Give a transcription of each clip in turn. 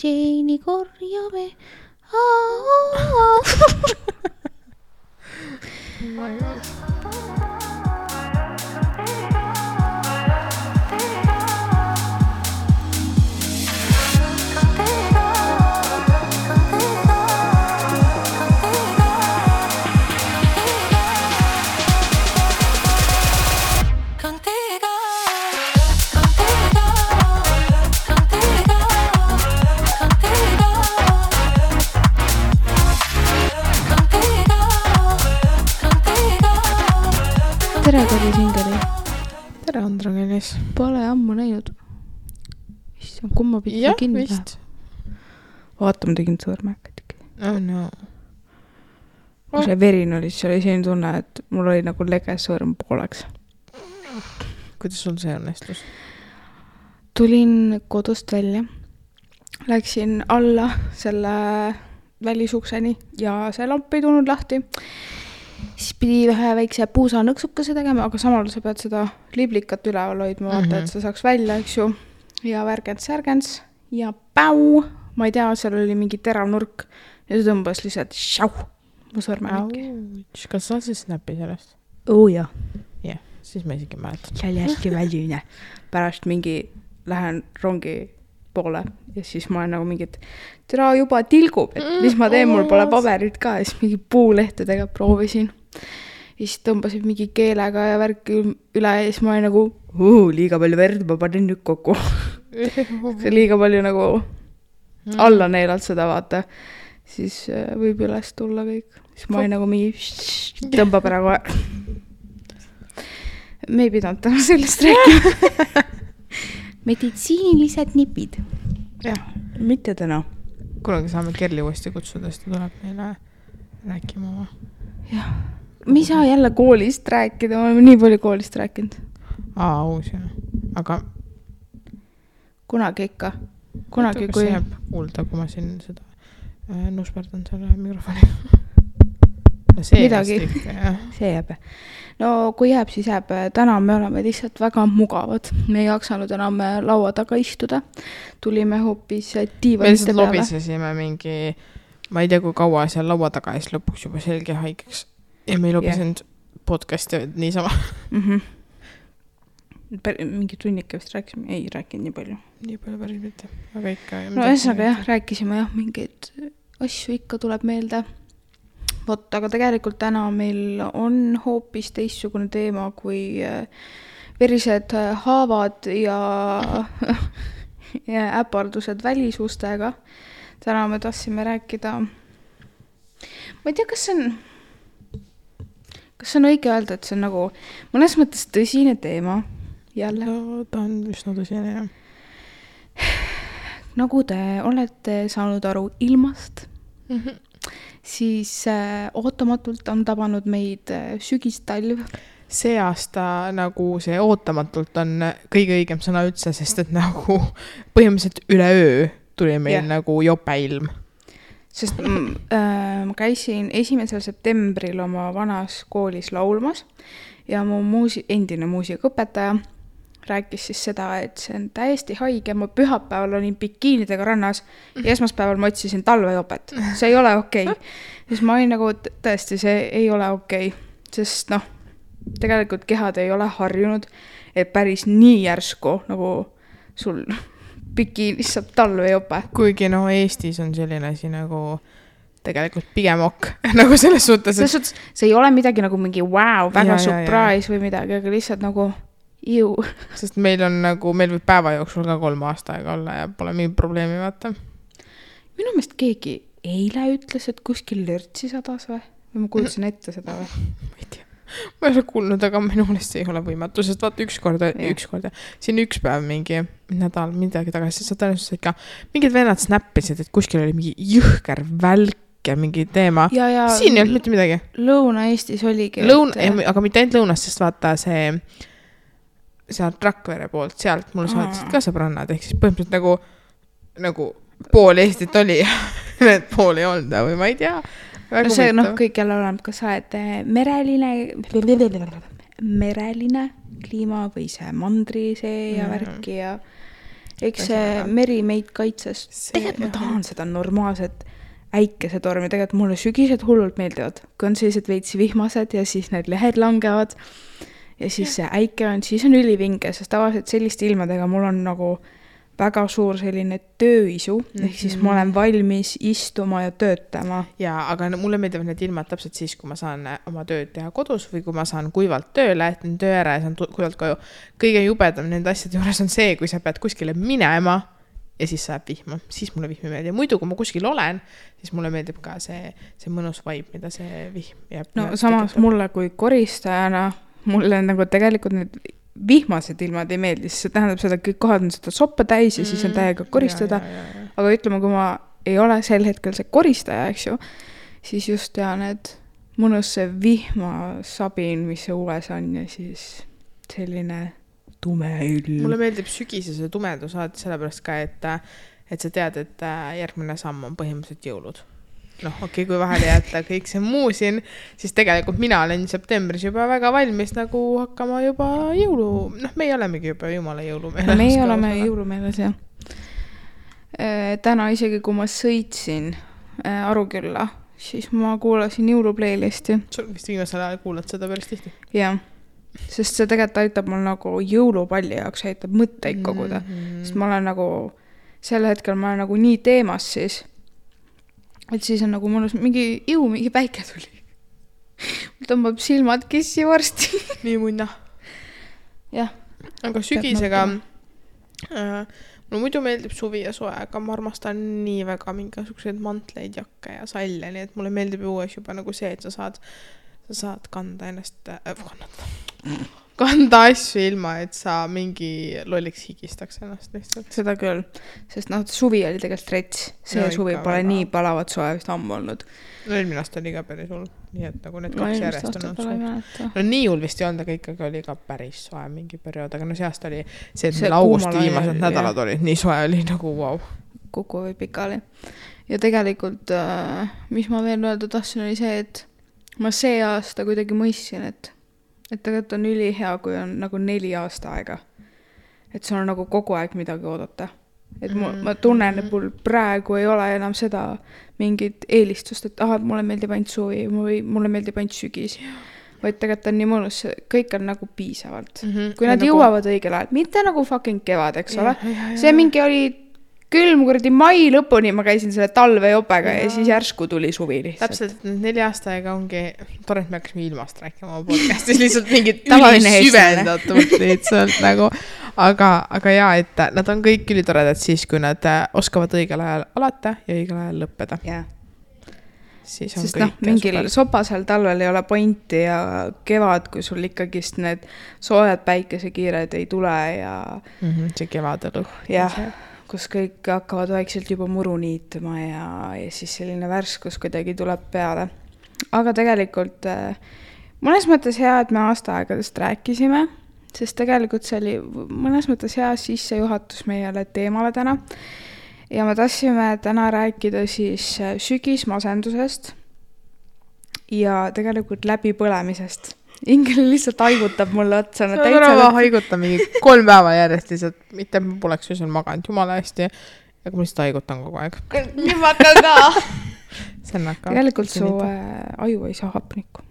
Jeini korjame. Oh my god. Tere, Kari Singeri. Tere, Andra Kelis. Pole ammu näinud. Issand, kumma pidi Jah, kinni vist. Vaata, ma tegin sõõrmäkad. Oh no. Kui see verine oli, siis oli selline tunne, et mul oli nagu lege sõõrm pooleks. Kuidas sul see õnnestus? Tulin kodust välja. Läksin alla selle välisukseni ja see lamp ei tulnud lahti. Siis pidi vähe väikse puusa nõksukese tegema, aga samal sa pead seda liblikat üleval hoidma, vaata, et sa saaks välja, eks ju. Ja värgents ja päu, ma ei tea, seal oli mingi terav nurk ja see tõmbas lihtsalt šau, mu sõrmemikki. Kas sa siis snappi sellest? Jah. Jah, siis ma isegi mäletan. See oli hästi väline. Pärast mingi lähen rongi poole ja siis ma olen nagu mingit tere juba tilgub, et mis ma teen, mul pole paberit ka ja siis mingi puulehtedega proovisin ja siis tõmbasid mingi keelega ja värki üle ja siis ma olin nagu liiga palju verd, ma panin nüüd kokku. Liiga palju nagu alla neelalt seda vaata, siis võib üles tulla kõik, siis ma olin nagu mingi tõmbab ära kohe. Me ei pidanud täna sellest rääkima. Meditsiinilised nipid. Jah. Mitte täna. Kunagi saame Kerli uuesti kutsuda, sest ta tuleb meile rääkima oma. Jah. Me ei saa jälle koolist rääkida, ma olen nii palju koolist rääkinud. Uus jah. Aga kunagi ikka. Kunagi kui... jääb kuulda, kui ma siin seda nusperdan selle mikrofoni. Midagi. See jääb. No kui jääb, siis jääb. Täna me oleme lihtsalt väga mugavad. Me ei jaksanud enam laua taga istuda. Tulime hoopis diivanite peale. Me lihtsalt lobisesime mingi, ma ei tea kui kaua seal laua taga ja siis lõpuks juba selge haigeks. Ja me ei lobisenud podcasti niisama. Mingi tunnike vist rääkisime. Ei rääkinud nii palju. Nii palju päris mitte. Aga ikka. No ühesõnaga jah, rääkisime jah, mingeid asju ikka tuleb meelde. Vot, aga tegelikult täna meil on hoopis teistsugune teema kui verised haavad ja äpardused välisustega. Täna me tahtsime rääkida, ma ei tea, kas on õige öelda, et see on nagu mõnes mõttes tõsine teema jälle. No, ta on üsna tõsine, jah. Nagu te olete saanud aru ilmast, siis ootamatult on tabanud meid sügistalv. See aasta nagu see ootamatult on kõige õigem sõna üldse, sest et nagu põhimõtteliselt üle öö tuli meil nagu jopeilm. Sest ma käisin 1. septembril oma vanas koolis laulmas ja mu endine muusikaõpetaja rääkis siis seda, et see on täiesti haige. Ma pühapäeval olin bikiinidega rannas ja esmaspäeval ma otsisin talvejopet. See ei ole okei. Siis ma olin nagu, tõesti, see ei ole okei. Sest tegelikult kehad ei ole harjunud, et päris nii järsku nagu sul bikiinis saab talvejope. Kuigi Eestis on selline asi nagu tegelikult pigem ok. Nagu selles suhtes, et... See ei ole midagi nagu mingi wow, väga surprise või midagi, aga lihtsalt nagu ju. Sest meil võib päeva jooksul ka 3 aastaaega olla ja pole mingi probleemi vaata. Minu meelest keegi eile ütles, et kuskil lörtsi sadas või ma kuulsin ette seda või? Ma ei tea. Ma ei ole kuulnud, aga minu meelest ei ole võimatu, sest vaata ükskord, siin üks päev mingi nädal midagi tagasi, sa tõenäoliselt ikka mingid vennad snappisid, et kuskil oli mingi jõhker välk ja mingi teema. Ja siin ei olnud mitte midagi. Lõuna-Eestis oligi. Aga mitte ainult lõunast, sest vaata see sealt Rakvere poolt, sealt mulle saatisid ka sõbrannad, ehk siis põhimõtteliselt nagu pool Eestit oli ja need pool ei olnud või ma ei tea. No see kõik jälle oleneb, kas sa oled mereline kliima või see mandri see ja värki ja eks see meri meid kaitses. Tegelikult ma tahan seda normaalset äikesetormi, tegelikult mulle sügised hullult meeldivad, kui on sellised veitsi vihmased ja siis need lehed langevad ja siis see äike on, siis on ülivinge, sest tavaliselt selliste ilmadega mul on nagu väga suur selline tööisu, ehk siis ma olen valmis istuma ja töötama. Jaa, aga mulle meeldivad need ilmad täpselt siis, kui ma saan oma tööd teha kodus või kui ma saan kuivalt tööle, et töö ära ja saan kuivalt koju. Kõige jubedam nende asjade juures on see, kui sa pead kuskile minema ja siis saab vihma. Siis mulle vihm ei meeldi. Muidu, kui ma kuskil olen, siis mulle meeldib ka see mõnus vibe, mida see vihm jääb. No samas mulle kui koristajana, mulle nagu tegelikult need vihmased ilmad ei meeldi, siis see tähendab seda, et kõik kohad on seda soppa täis ja siis on täiega koristada. Aga ütleme, kui ma ei ole sel hetkel see koristaja, eks ju, siis just tean, et mõnus see vihmasabin, mis see ules on ja siis selline tume ilm. Mulle meeldib sügisese tumedus sellepärast ka, et sa tead, et järgmine samm on põhimõtteliselt jõulud. Okei, kui vahele jätta kõik see muu siin, siis tegelikult mina olen septembris juba väga valmis nagu hakkama juba jõulu. Meie olemegi juba jumala jõulumeeles. Meie oleme jõulumeeles, jah. Täna isegi, kui ma sõitsin Arukülla, siis ma kuulasin jõuluplaylist'i. Sul vist viimasel ajal kuulad seda päris tihti? Jah, sest see tegelikult aitab mul nagu jõulupalli jaoks, aitab mõtteid koguda. Sest ma olen nagu, sel hetkel ma olen nagu nii teemas siis, et siis on nagu mõnus mingi päike tuli. Mul tõmbab silmad kissi varsti. Nii munna. Jah. Aga sügisega mulle muidu meeldib suvi ja soe, aga ma armastan nii väga mingisugused mantleid, jakke ja salle, nii et mulle meeldib uues juba nagu see, et sa saad kanda ennast kanda asju ilma, et sa mingi lolliks higistaks ennast lihtsalt. Seda küll, sest suvi oli tegelikult rets. See no, suvi pole väga. Nii palavat soe vist ammu olnud. Eelmine aasta oli ka päris hull, nii et nagu need kaks järjest on olnud. Nii hull vist ei olnud, aga ikkagi oli ka päris soe mingi periood, aga see aasta oli see, et meil augusti viimased nädalad olid, nii soe oli nagu wow. Kuku või pikali. Ja tegelikult, mis ma veel öelda tahtsin, oli see, et ma see aasta kuidagi mõistsin, et tegelikult on ülihea, kui on nagu 4 aasta aega. Et sul on nagu kogu aeg midagi oodata. Et ma tunnen, et mul praegu ei ole enam seda mingit eelistust, et mulle meeldib ainult suvi või mulle meeldib ainult sügis. Vaid tegelikult on nii mõnus, kõik on nagu piisavalt. Kui nad jõuavad õigel ajal, mitte nagu fucking kevad, eks ole. See mingi oli külm kuradi mai lõpuni, ma käisin selle talvejopega ja siis järsku tuli suvi lihtsalt. Täpselt, 4 aasta aega ongi, tore, et me hakkasime ilmast rääkima oma podcastis, lihtsalt mingid ülisüvendatult lihtsalt nagu, aga jaa, et nad on kõik ülitoredad siis, kui nad oskavad õigel ajal alata ja õigel ajal lõppeda. Yeah. Siis on sest mingil sopasel talvel ei ole pointi ja kevad, kui sul ikkagist need soojad päikesekiired ei tule ja see kevadelu. Jah. Kus kõik hakkavad vaikselt juba muru niituma ja siis selline värskus kuidagi tuleb peale. Aga tegelikult mõnes mõttes hea, et me aastaaegadest rääkisime, sest tegelikult see oli mõnes mõttes hea sissejuhatus meile teemale täna. Ja me tahtsime täna rääkida siis sügismasendusest ja tegelikult läbipõlemisest. Ingel lihtsalt haigutab mulle otsa. See on rava haiguta mingi 3 päeva järjest lihtsalt, mitte ma poleks öösel maganud jumala hästi, aga ma lihtsalt haigutan kogu aeg. Nii ma hakkan ka. Tegelikult su aju ei saa hapnikku.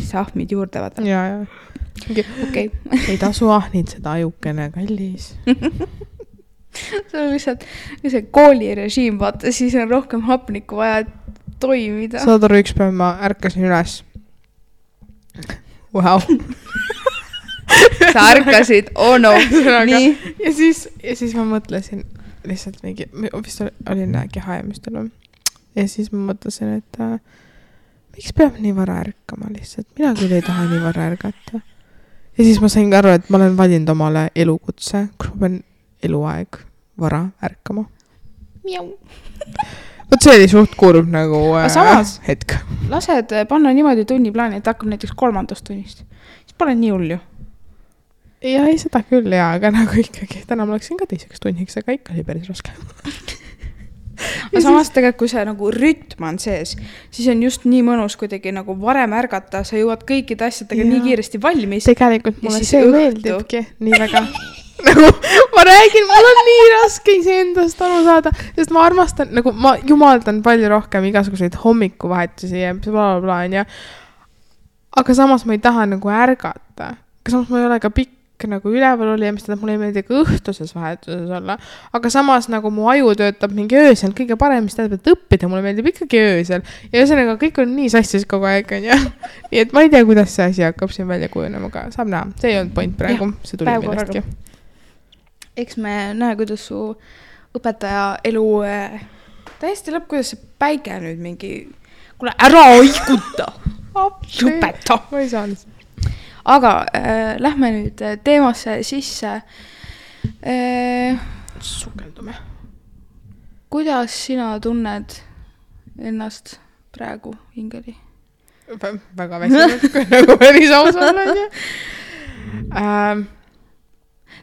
Sa ahmid juurde vaata. Jaa. Okay. Ei tasu ahnid seda ajukene kallis. See on lihtsalt see koolirežiim, vaata, siis on rohkem hapnikku vaja toimida. Saad aru, üks päev ma ärkasin üles. Wow. Sa ärkasid, no. Nii. Ja siis ma mõtlesin lihtsalt mingi, vist olin kehaemistel. Ja siis ma mõtlesin, et miks peab nii vara ärkama lihtsalt? Mina küll ei taha nii vara ärgata. Ja siis ma sain aru, et ma olen valinud omale elukutse, kus ma pean eluaeg vara ärkama. Miau. Võt see oli suht kurb nagu hetk. Lased panna niimoodi tunniplaani, et hakkab näiteks 3. tunnist. Siis pole nii hull ju. Ja ei seda küll, aga nagu ikkagi. Täna ma läksin ka 2. tunniks, aga ikka oli päris raske. Aga samas tegelikult, kui see nagu rütm on sees, siis on just nii mõnus kuidagi nagu varem ärgata, sa jõuad kõikide asjadega nii kiiresti valmis. Tegelikult mulle see meeldibki nii väga. nagu ma räägin, mul on nii raske iseendast aru saada, sest ma armastan, nagu ma jumaldan palju rohkem igasuguseid hommikuvahetusi ja blablabla, onju. Aga samas ma ei taha nagu ärgata. Aga samas ma ei ole ka pikk nagu üleval oli ja mis tähendab, mulle ei meeldi ka õhtuses vahetuses olla. Aga samas nagu mu aju töötab mingi öösel kõige parem, mis tähendab, et õppida mulle meeldib ikkagi öösel. Ja ühesõnaga kõik on nii sassis kogu aeg, onju. Nii et ma ei tea, kuidas see asi hakkab siin välja kujunema, aga saab näha. See ei olnud point praegu, see tuli millestki. Eks me näe, kuidas su õpetaja elu täiesti lõpp, kuidas see päike nüüd mingi, kuule ära oikuta, lõpeta. Ma ei saa lihtsalt. Aga lähme nüüd teemasse sisse. Sukeldume. Kuidas sina tunned ennast praegu hingeli? Väga väsinud, kui nagu päris aus olla, onju.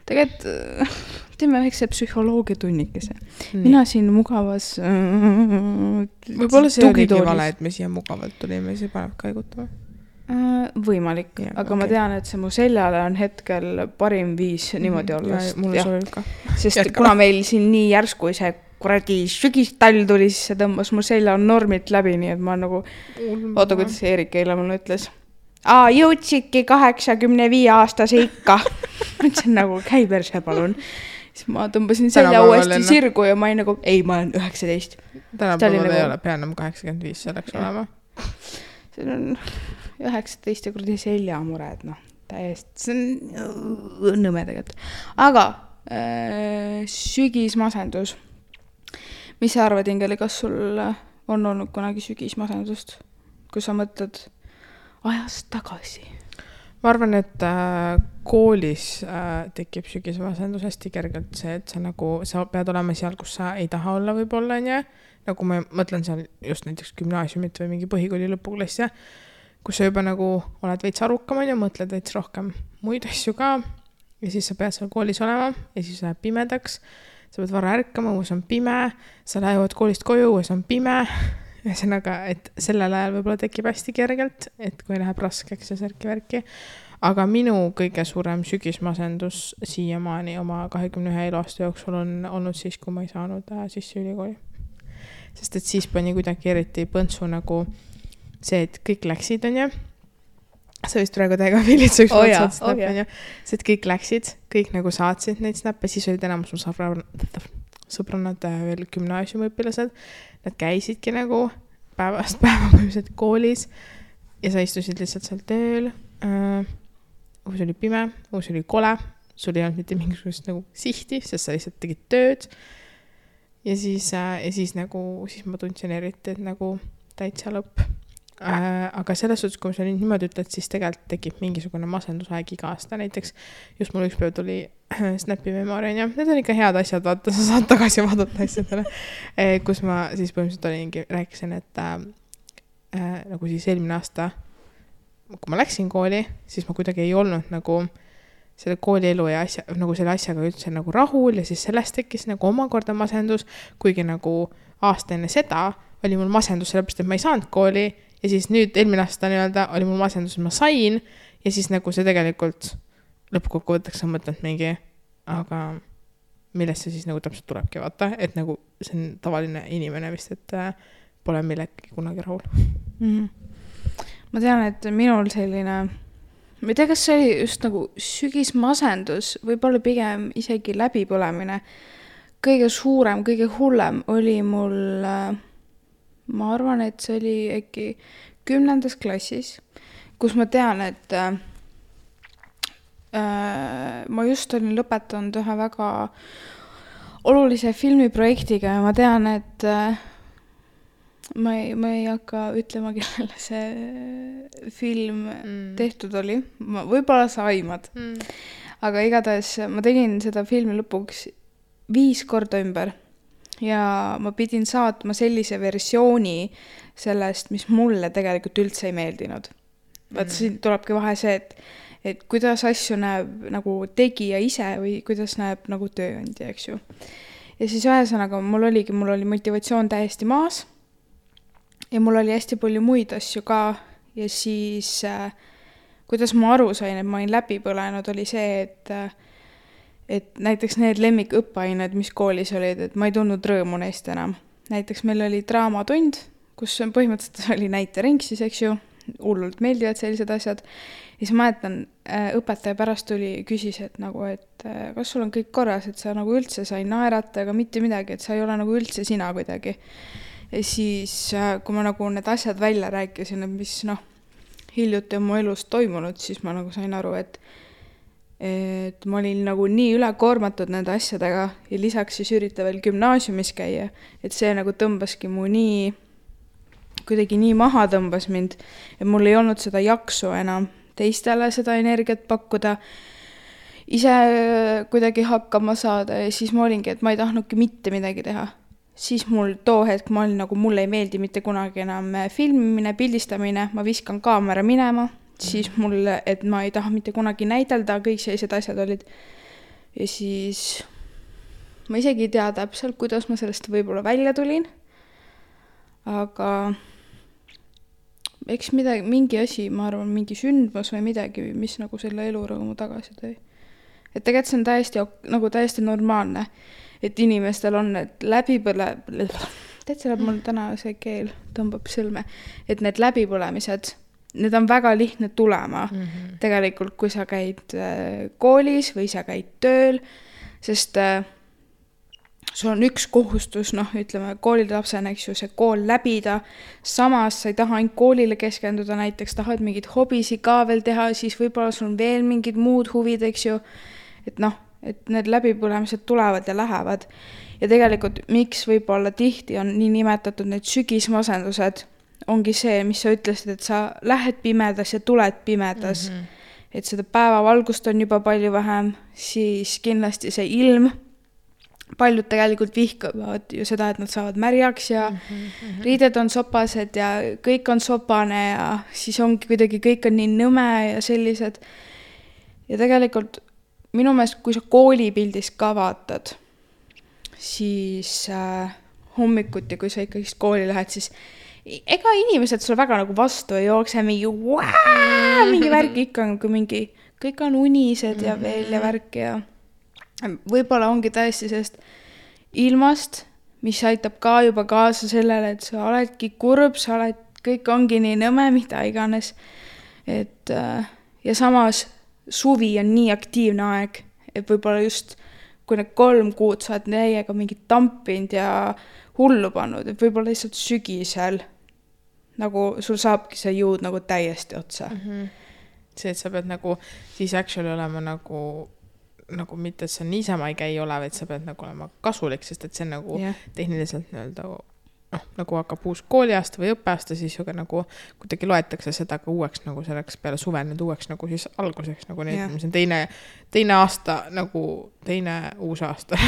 Tegelikult teeme väikse psühholoogia tunnikese. Mina siin mugavas võib-olla see oligi vale, et me siia mugavalt tulime, see paneb kaigutama. Võimalik, ja, aga okay. Ma tean, et see mu seljale on hetkel parim viis niimoodi olla. Mulle sobib ka. Sest jätkama. Kuna meil siin nii järsku see kuradi sügistall tuli, siis see tõmbas mu selja normit läbi, nii et ma nagu oota, kuidas Eerik eile mulle ütles. Jõudsidki 85-aastase ikka. Mõtlesin nagu, käi perse palun. Siis ma tõmbasin selja uuesti sirgu ja ma ei nagu, ei, ma olen 19. Tänapäeval ei ole pea enam 85 selleks olema. See on 19 ja kuradi seljamured, täiesti, see on nõme tegelikult. Aga sügismasendus. Mis sa arvad, Ingeli, kas sul on olnud kunagi sügismasendust, kui sa mõtled ajast tagasi? Ma arvan, et koolis tekib sügismasendus hästi kergelt see, et sa pead olema seal, kus sa ei taha olla võib-olla, nagu ma mõtlen seal just näiteks gümnaasiumit või mingi põhikooli lõpuklassi, kus sa juba nagu oled veits arukam ja mõtled veits rohkem muid asju ka ja siis sa pead seal koolis olema ja siis läheb pimedaks, sa pead vara ärkama, õues on pime, sa lähevad koolist koju, õues on pime, ühesõnaga, et sellel ajal võib-olla tekib hästi kergelt, et kui läheb raskeks ja särki-värki, aga minu kõige suurem sügismasendus siiamaani oma 21 eluaasta jooksul on olnud siis, kui ma ei saanud sisse ülikooli. Sest et siis pani kuidagi eriti põntsu nagu see, et kõik läksid, onju. Sa vist praegu täiega filitsa üks snap, onju. See, et kõik läksid, kõik nagu saatsid neid snappe, siis olid enamus mu sõbrannad veel gümnaasiumiõpilased. Nad käisidki nagu päevast päeva koolis ja sa istusid lihtsalt seal tööl. Uus oli pime, uus oli kole, sul ei olnud mitte mingisugust nagu sihti, sest sa lihtsalt tegid tööd. Ja siis ma tundsin eriti, et nagu täitsa lõpp. Aga selles suhtes, kui sa niimoodi ütled, siis tegelikult tekib mingisugune masendusaeg iga aasta. Näiteks just mul üks päev tuli Snapi memory, ja need on ikka head asjad, vaata, sa saad tagasi vaadata asjadele. Kus ma siis põhimõtteliselt rääkisin, et nagu siis eelmine aasta, kui ma läksin kooli, siis ma kuidagi ei olnud nagu selle koolielu ja nagu selle asjaga üldse nagu rahul ja siis sellest tekkis nagu omakorda masendus, kuigi nagu aasta enne seda oli mul masendus sellepärast, et ma ei saanud kooli ja siis nüüd eelmine aasta oli mul masendus, et ma sain ja siis nagu see tegelikult lõppkokkuvõtteks sa mõtled mingi, aga millest see siis nagu täpselt tulebki, vaata, et nagu see on tavaline inimene vist, et pole millegi kunagi rahul. Ma tean, et minul selline ma ei tea, kas see oli just nagu sügismasendus, võib-olla pigem isegi läbipõlemine. Kõige suurem, kõige hullem oli mul, ma arvan, et see oli äkki 10. klassis, kus ma tean, et ma just olin lõpetanud ühe väga olulise filmiprojektiga ja ma tean, et ma ei hakka ütlema, kellele see film tehtud oli. Võib-olla sa aimad. Aga igatahes ma tegin seda filmi lõpuks 5 korda ümber. Ja ma pidin saatma sellise versiooni sellest, mis mulle tegelikult üldse ei meeldinud. Vaat siin tulebki vahe see, et kuidas asju näeb nagu tegija ise või kuidas näeb nagu tööandja, eks ju. Ja siis ühesõnaga mul oli motivatsioon täiesti maas. Ja mul oli hästi palju muid asju ka ja siis kuidas ma aru sain, et ma olin läbi põlenud, oli see, et näiteks need lemmikõppeained, mis koolis olid, et ma ei tundnud rõõmu neist enam. Näiteks meil oli draamatund, kus põhimõtteliselt oli näitering siis, eks ju, hullult meeldivad sellised asjad. Ja siis mäletan, õpetaja pärast küsis, et nagu, et kas sul on kõik korras, et sa nagu üldse sai naerata, aga mitte midagi, et sa ei ole nagu üldse sina kuidagi. Ja siis, kui ma nagu need asjad välja rääkisin, mis hiljuti on mu elus toimunud, siis ma nagu sain aru, et ma olin nagu nii ülekoormatud nende asjadega ja lisaks siis ürita veel gümnaasiumis käia, et see nagu tõmbaski mu kuidagi nii maha tõmbas mind, et mul ei olnud seda jaksu enam teistele seda energiat pakkuda, ise kuidagi hakkama saada ja siis ma olingi, et ma ei tahtnudki mitte midagi teha. Siis mul too hetk ma olin nagu, mulle ei meeldi mitte kunagi enam filmimine, pildistamine, ma viskan kaamera minema, siis mulle, et ma ei taha mitte kunagi näidelda, kõik sellised asjad olid. Ja siis ma isegi ei tea täpselt, kuidas ma sellest võib-olla välja tulin, aga eks midagi, mingi asi, ma arvan, mingi sündmus või midagi, mis nagu selle elurõõmu tagasi tõi. Et tegelikult see on täiesti normaalne, et inimestel on need täitsa läheb mul täna see keel tõmbab sõlme, et need läbipõlemised, need on väga lihtne tulema tegelikult, kui sa käid koolis või sa käid tööl, sest sul on üks kohustus, ütleme, koolilapsena, eks ju, see kool läbida, samas sa ei taha ainult koolile keskenduda, näiteks tahad mingid hobisi ka veel teha, siis võib-olla sul on veel mingid muud huvid, eks ju, et et need läbipõlemised tulevad ja lähevad. Ja tegelikult, miks võib-olla tihti on nii nimetatud need sügismasendused, ongi see, mis sa ütlesid, et sa lähed pimedas ja tuled pimedas, et seda päevavalgust on juba palju vähem, siis kindlasti see ilm, paljud tegelikult vihkavad ju seda, et nad saavad märjaks ja riided on sopased ja kõik on sopane ja siis ongi kuidagi kõik on nii nõme ja sellised. Ja tegelikult minu meelest, kui sa koolipildis ka vaatad, siis hommikuti, kui sa ikkagi kooli lähed, siis ega inimesed sulle väga nagu vastu ei jookse mingi värk ikka, kui mingi, kõik on unised ja veel ja värk ja võib-olla ongi täiesti sellest ilmast, mis aitab ka juba kaasa sellele, et sa oledki kurb, kõik ongi nii nõme, mida iganes. Et, ja samas suvi on nii aktiivne aeg, et võib-olla just kui need 3 kuud sa oled neiega mingit tampinud ja hullu pannud, et võib-olla lihtsalt sügisel nagu sul saabki see jõud nagu täiesti otsa. See, et sa pead nagu siis actually olema nagu mitte, et sa niisama ei käi ole, vaid sa pead nagu olema kasulik, sest et see nagu tehniliselt nagu hakkab uus kooliaasta või õppeaasta, siis ju nagu kuidagi loetakse seda ka uueks nagu selleks peale suve nüüd uueks nagu siis alguseks nagu need, mis on teine aasta nagu teine uus aasta.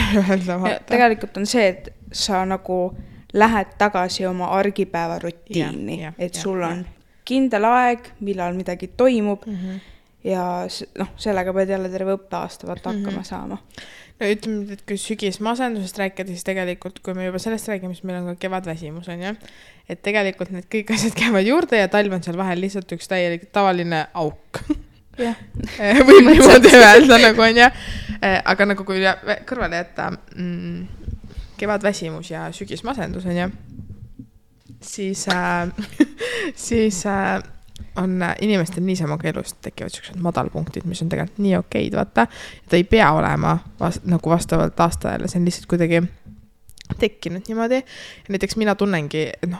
Tegelikult on see, et sa nagu lähed tagasi oma argipäeva rutiini, et sul on kindel aeg, millal midagi toimub ja sellega pead jälle terve õppeaasta hakkama saama. No ütleme, et kui sügismasendusest rääkida, siis tegelikult, kui me juba sellest räägime, siis meil on ka kevadväsimus, on ju. Et tegelikult need kõik asjad käivad juurde ja talv on seal vahel lihtsalt üks täielik tavaline auk. Võib niimoodi öelda, nagu on ju. Aga nagu kui kõrvale jätta kevadväsimus ja sügismasendus, on ju, siis on inimestel niisama elust tekivad sellised madalpunktid, mis on tegelikult nii okeid, vaata. Ta ei pea olema nagu vastavalt aastajale, see on lihtsalt kuidagi tekkinud niimoodi. Ja näiteks mina tunnengi, et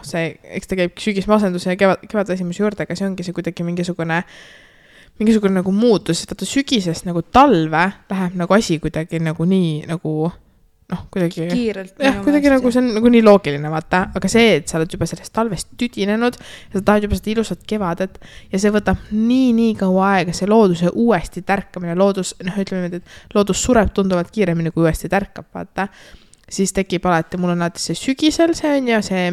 eks ta käib sügismasenduse ja kevadväsimuse juurde, aga see ongi see kuidagi mingisugune nagu muutus, vaata sügisest nagu talve läheb nagu asi kuidagi nagu nii nagu kuidagi kiirelt. Kuidagi nagu see on nagu nii loogiline, vaata, aga see, et sa oled juba sellest talvest tüdinenud ja sa tahad juba seda ilusat kevadet ja see võtab nii kaua aega, see looduse uuesti tärkamine, ütleme, et loodus sureb tunduvalt kiiremini, kui uuesti tärkab, vaata, siis tekib alati, mul on alati see sügisel, see on ja see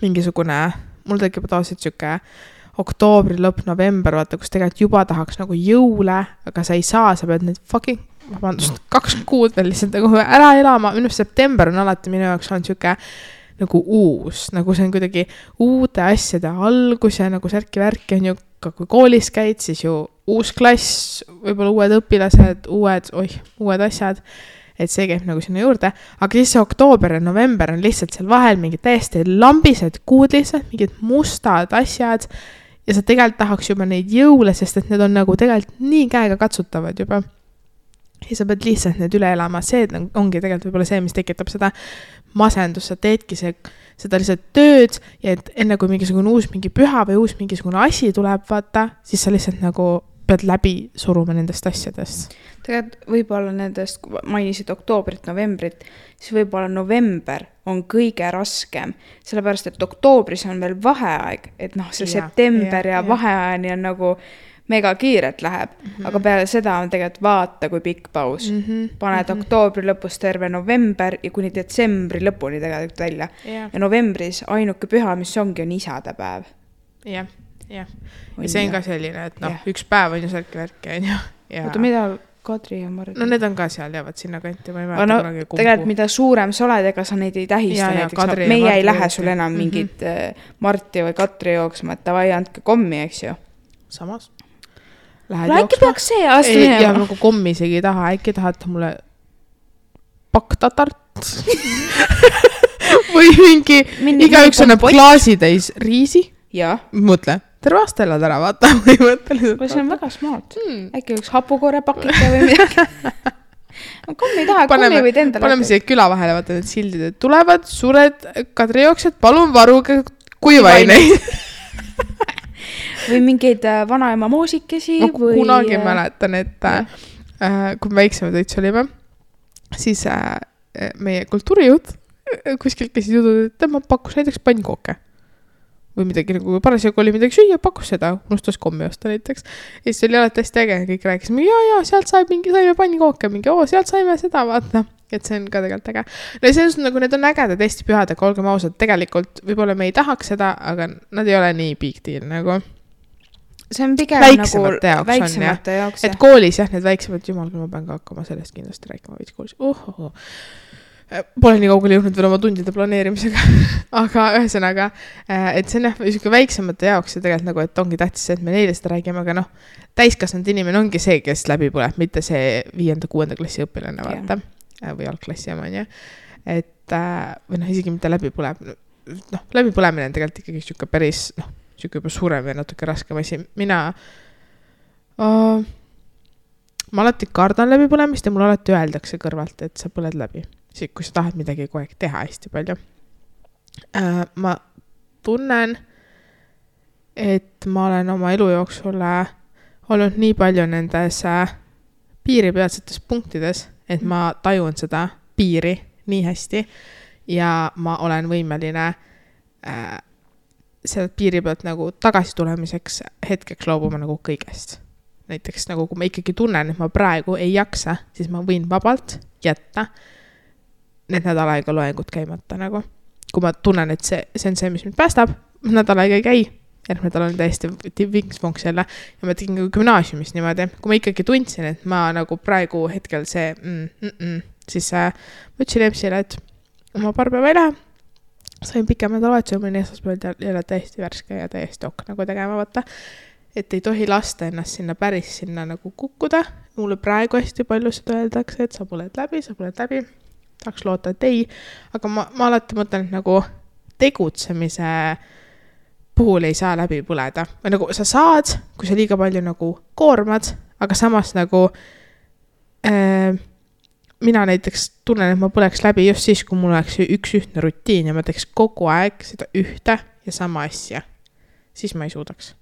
mingisugune, mul tekib tavaliselt siuke oktoobri lõpp, november, vaata, kus tegelikult juba tahaks nagu jõule, aga sa ei saa, sa pead need 2 kuud veel lihtsalt nagu ära elama, minu september on alati minu jaoks on siuke nagu uus, nagu see on kuidagi uude asjade algus ja nagu särki-värki on ju ka kui koolis käid, siis ju uus klass, võib-olla uued õpilased, uued asjad, et see käib nagu sinna juurde, aga siis see oktoober ja november on lihtsalt seal vahel mingid täiesti lambised kuud lihtsalt, mingid mustad asjad ja sa tegelikult tahaks juba neid jõule, sest et need on nagu tegelikult nii käega katsutavad juba. Ja sa pead lihtsalt need üle elama, see ongi tegelikult võib-olla see, mis tekitab seda masendust, sa teedki seda lihtsalt tööd ja et enne kui mingisugune uus mingi püha või uus mingisugune asi tuleb, vaata, siis sa lihtsalt nagu pead läbi suruma nendest asjadest. Tegelikult võib-olla nendest, mainisid oktoobrit, novembrit, siis võib-olla november on kõige raskem, sellepärast et oktoobris on veel vaheaeg, et noh, see september ja vaheajani on nagu mega kiirelt läheb, aga peale seda on tegelikult vaata kui pikk paus. Paned oktoobri lõpus terve november ja kuni detsembri lõpuni tegelikult välja. Ja novembris ainuke püha, mis ongi, on isadepäev. Jah. Ja see on ka selline, et noh, üks päev on ju särki-värki, on ju. Oota, mida Kadri ja Mardi? No need on ka seal, jäävad sinna kanti. Tegelikult mida suurem sa oled, ega sa neid ei tähista. Näiteks, meie ei lähe sul enam mingit Marti või Katri jooksma, et tavai andke kommi, eks ju. Samas. Äkki peaks see aasta minema. Ja nagu kommi isegi ei taha, äkki tahate mulle paktatart või mingi igaüks annab klaasitäis riisi. Ja. Mõtle, terve aasta elad ära, vaata. See on väga smart. Äkki üks hapukoore pakike või midagi. Kommi ei taha, kommi võid endale. Paneme siia küla vahele, vaata need sildid, et tulevad suured kadrijooksed, palun varuge kuivaineid. Või mingeid vanaema moosikesi. Kunagi mäletan, et kui me väiksemad õits olime, siis meie kultuurijõud kuskilt käisid jutud, et tema pakkus näiteks pannkooke. Või midagi nagu parasjagu oli midagi süüa, pakkus seda, unustas kommi osta näiteks. Ja siis oli alati hästi äge, kõik rääkisime, ja, sealt saime pannkooke, sealt saime seda, vaata. Et see on ka tegelikult äge. No see on nagu, need on ägedad Eesti pühad, aga olgem ausad, tegelikult võib-olla me ei tahaks seda, aga nad ei ole nii big deal nagu. See on pigem väiksemate nagu väiksemate jaoks. Et koolis jah, need väiksemad, jumal, kui ma pean ka hakkama sellest kindlasti rääkima veits koolis. Pole nii kaugele jõudnud veel oma tundide planeerimisega. Aga ühesõnaga, et see on jah, väiksemate jaoks ja tegelikult nagu, et ongi tähtis see, et me neile seda räägime, aga noh, täiskasvanud inimene ongi see, kes läbi põleb, mitte see 5.-6. klassi õpilane, vaata. Või algklassi oma, on ju. Et, või noh, isegi mitte läbi põleb. Noh, läbi põlemine on tegelikult ikkagi siuke päris, noh, siuke juba suurem ja natuke raskem asi. Ma alati kardan läbi põlemist ja mul alati öeldakse kõrvalt, et sa põled läbi. Kui sa tahad midagi kogu aeg teha hästi palju. Ma tunnen, et ma olen oma elu jooksul olnud nii palju nendes piiripealsetes punktides, et ma tajun seda piiri nii hästi ja ma olen võimeline selle piiri pealt nagu tagasi tulemiseks hetkeks loobuma nagu kõigest. Näiteks nagu kui ma ikkagi tunnen, et ma praegu ei jaksa, siis ma võin vabalt jätta need nädal aega loengud käimata nagu. Kui ma tunnen, et see on see, mis mind päästab, nädal aega ei käi, järgmine nädal on täiesti vinks-vonks jälle ja ma tegin gümnaasiumis niimoodi. Kui ma ikkagi tundsin, et ma nagu praegu hetkel see siis ma ütlesin EMS-ile, et oma paar päeva ei lähe, sain pikem nädalavahetuse, mõni esmaspäeval jälle täiesti värske ja täiesti nagu tegema võtta, et ei tohi lasta ennast sinna päris sinna nagu kukkuda. Mulle praegu hästi palju seda öeldakse, et sa põled läbi. Tahaks loota, et ei, aga ma alati mõtlen, et nagu tegutsemise puhul ei saa läbi põleda. Või nagu sa saad, kui sa liiga palju nagu koormad, aga samas nagu mina näiteks tunnen, et ma põleks läbi just siis, kui mul oleks üks ühtne rutiin ja ma teeks kogu aeg seda ühte ja sama asja. Siis ma ei suudaks.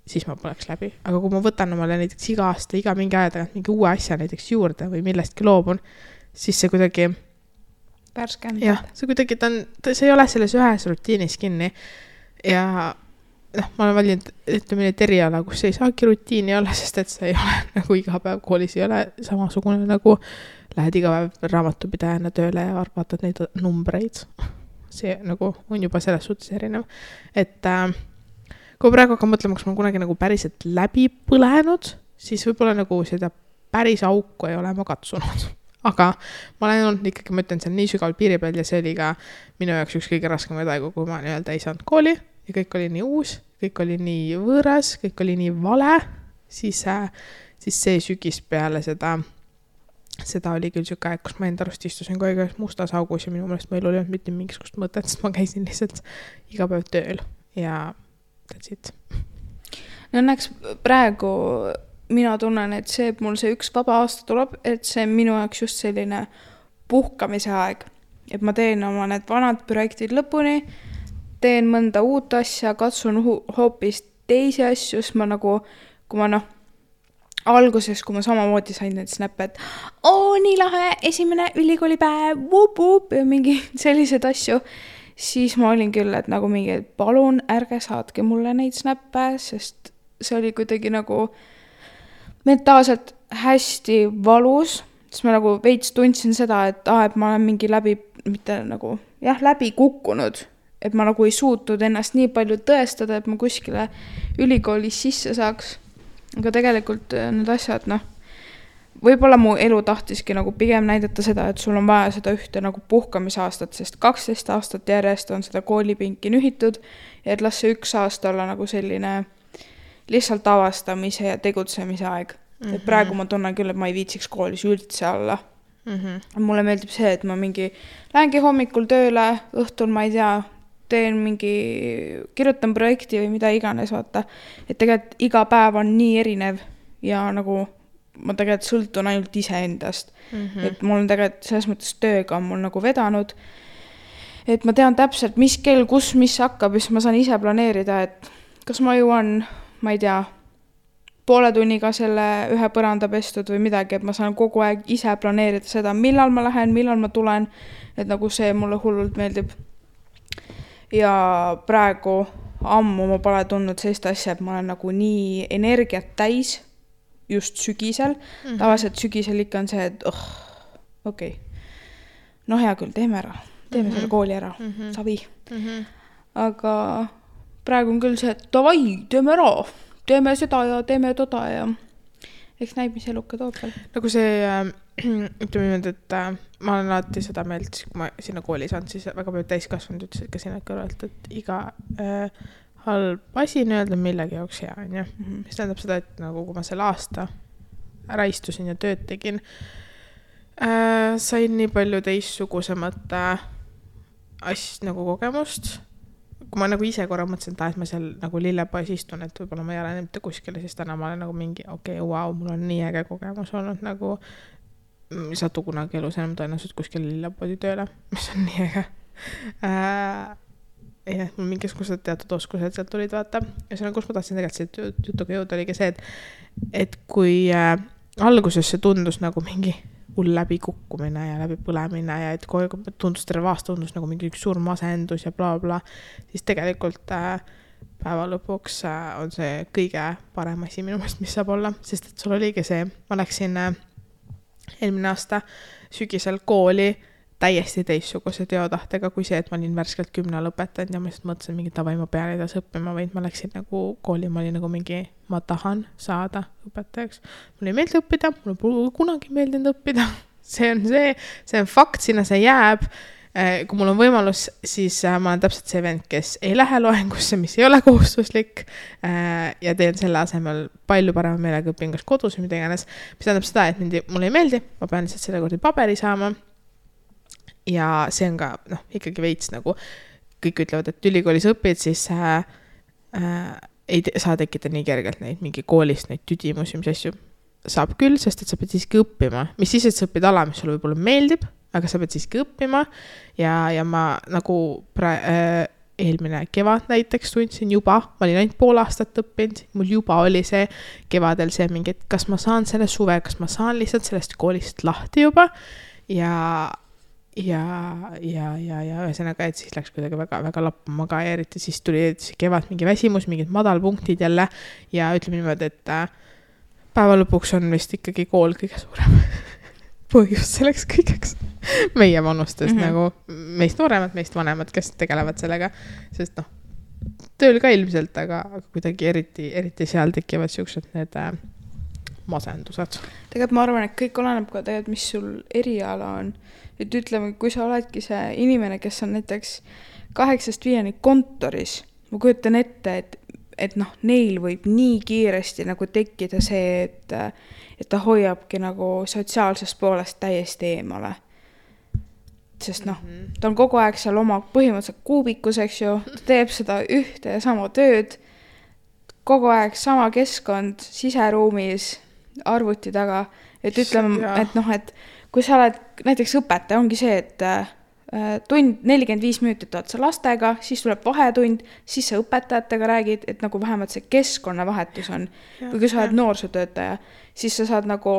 Siis ma põleks läbi. Aga kui ma võtan omale näiteks iga aasta, iga mingi aja tagant mingi uue asja näiteks juurde või millestki loobun, siis see kuidagi värskendab. Jah, see kuidagi see ei ole selles ühes rutiinis kinni ja noh, ma olen valinud, ütleme need eriala, kus ei saagi rutiini olla, sest et see ei ole nagu iga päev koolis ei ole samasugune nagu lähed iga päev raamatupidajana tööle ja vaatad neid numbreid. See nagu on juba selles suhtes erinev. Et kui praegu hakkan mõtlema, kas ma kunagi nagu päriselt läbi põlenud, siis võib-olla nagu seda päris auku ei ole ma katsunud. Aga ma olen olnud ikkagi, ma ütlen, see on nii sügaval piiri peal ja see oli ka minu jaoks üks kõige raskemaid aegu, kui ma nii-öelda ei saanud kooli ja kõik oli nii uus kõik oli nii võõras, kõik oli nii vale, siis see sügis peale seda oli küll siuke aeg, kus ma enda arust istusin kogu aeg mustas augus ja minu meelest meil oli mitte mingisugust mõtet, sest ma käisin lihtsalt iga päev tööl ja that's it. No õnneks praegu mina tunnen, et see, et mul see üks vaba aasta tuleb, et see on minu jaoks just selline puhkamise aeg. Et ma teen oma need vanad projektid lõpuni, teen mõnda uut asja, katsun hoopis teisi asju, siis ma nagu, kui ma alguses, kui ma samamoodi sain need snappe, et nii lahe, esimene ülikoolipäev, ja mingi sellised asju, siis ma olin küll, et nagu mingi, et palun ärge saatke mulle neid snappe, sest see oli kuidagi nagu mentaalselt hästi valus, siis ma nagu veits tundsin seda, et ma olen mingi läbi kukkunud, et ma nagu ei suutnud ennast nii palju tõestada, et ma kuskile ülikoolis sisse saaks. Aga tegelikult need asjad, võib-olla mu elu tahtiski nagu pigem näidata seda, et sul on vaja seda ühte nagu puhkamisaastat, sest 12 aastat järjest on seda koolipinki nühitud ja et las see 1 aasta olla nagu selline lihtsalt avastamise ja tegutsemise aeg. Et praegu ma tunnen küll, et ma ei viitsiks koolis üldse olla. Mulle meeldib see, et ma lähengi hommikul tööle, õhtul ma ei tea, kirjutan projekti või mida iganes, vaata. Et tegelikult iga päev on nii erinev ja nagu ma tegelikult sõltun ainult ise endast. Et mul on tegelikult selles mõttes tööga on mul nagu vedanud, et ma tean täpselt, mis kell, kus, mis hakkab, siis ma saan ise planeerida, et kas ma jõuan, ma ei tea, poole tunniga selle ühe põranda pestud või midagi, et ma saan kogu aeg ise planeerida seda, millal ma lähen, millal ma tulen, et nagu see mulle hullult meeldib. Ja praegu ammu ma pole tundnud sellist asja, et ma olen nagu nii energiat täis just sügisel. Tavaliselt sügisel ikka on see, et okei. No hea küll, teeme ära. Teeme selle kooli ära. Savi. Aga praegu on küll see, et davai, teeme ära. Teeme seda ja teeme toda ja eks näib, mis eluka toob veel. Nagu see, ütleme niimoodi, et ma olen alati seda meelt, kui ma sinna kooli saan, siis väga palju täiskasvanud ütlesid ka sinna kõrvalt, et iga halb asi nii-öelda millegi jaoks hea on. Mis tähendab seda, et nagu kui ma selle aasta ära istusin ja tööd tegin, sain nii palju teistsugusemat nagu kogemust. Kui ma nagu ise korra mõtlesin, et ma seal nagu lillepoes istun, et võib-olla ma ei ole mitte kuskile, siis täna ma olen nagu mingi, mul on nii äge kogemus olnud, nagu ei saatu kunagi elus enam tõenäoliselt kuskile lillepoodi tööle, mis on nii äge. Ja mul mingisugused teatud oskused sealt tulid, vaata. Ja see on, kus ma tahtsin tegelikult see jutuga jõuda, oligi see, et kui alguses see tundus nagu mingi hull läbi kukkumine ja läbi põlemine ja et tundus terve aasta tundus nagu mingi üks suur masendus ja bla, siis tegelikult päeva lõpuks on see kõige parem asi minu meelest, mis saab olla, sest et sul oligi see, ma läksin eelmine aasta sügisel kooli täiesti teistsuguse teotahtega kui see, et ma olin värskelt 10 lõpetanud ja ma lihtsalt mõtlesin mingi tavai, ma pean edasi õppima, vaid ma läksin nagu kooli, ma olin nagu mingi, ma tahan saada õpetajaks. Mulle ei meeldi õppida, mulle pole kunagi meeldinud õppida. See on fakt, sinna see jääb. Kui mul on võimalus, siis ma olen täpselt see vend, kes ei lähe loengusse, mis ei ole kohustuslik ja teen selle asemel palju parema meelega õpin kas kodus või mida iganes. Mis tähendab seda, et mulle ei meeldi, ma pean lihtsalt selle kordi paberi saama. Ja see on ka, ikkagi veits nagu kõik ütlevad, et ülikoolis õpid, siis ei saa tekkida nii kergelt neid mingi koolist, neid tüdimusi, mis asju saab küll, sest et sa pead siiski õppima. Mis siis, et sa õpid ala, mis sulle võib-olla meeldib, aga sa pead siiski õppima ja ma nagu eelmine kevad näiteks tundsin juba, ma olin ainult pool aastat õppinud, mul juba oli see kevadel see mingi, et kas ma saan selle suve, kas ma saan lihtsalt sellest koolist lahti juba ja ühesõnaga, et siis läks kuidagi väga, väga lappama ka ja eriti siis tuli kevad mingi väsimus, mingid madalpunktid jälle ja ütleme niimoodi, et päeva lõpuks on vist ikkagi kool kõige suurem põhjus selleks kõigeks meie vanustest nagu meist nooremad, meist vanemad, kes tegelevad sellega, sest tööl ka ilmselt, aga kuidagi eriti seal tekivad siuksed need masendused. Tegelikult ma arvan, et kõik oleneb ka tegelikult, mis sul eriala on. Et ütleme, kui sa oledki see inimene, kes on näiteks 8-5 kontoris, ma kujutan ette, et et noh, neil võib nii kiiresti nagu tekkida see, et ta hoiabki nagu sotsiaalsest poolest täiesti eemale. Sest noh, ta on kogu aeg seal oma põhimõtteliselt kuubikus, eks ju, ta teeb seda ühte ja sama tööd, kogu aeg sama keskkond siseruumis, arvuti taga, et ütleme, et noh, et kui sa oled näiteks õpetaja, ongi see, et tund 45 minutit oled sa lastega, siis tuleb vahetund, siis sa õpetajatega räägid, et nagu vähemalt see keskkonnavahetus on. Või kui sa oled noorsootöötaja, siis sa saad nagu,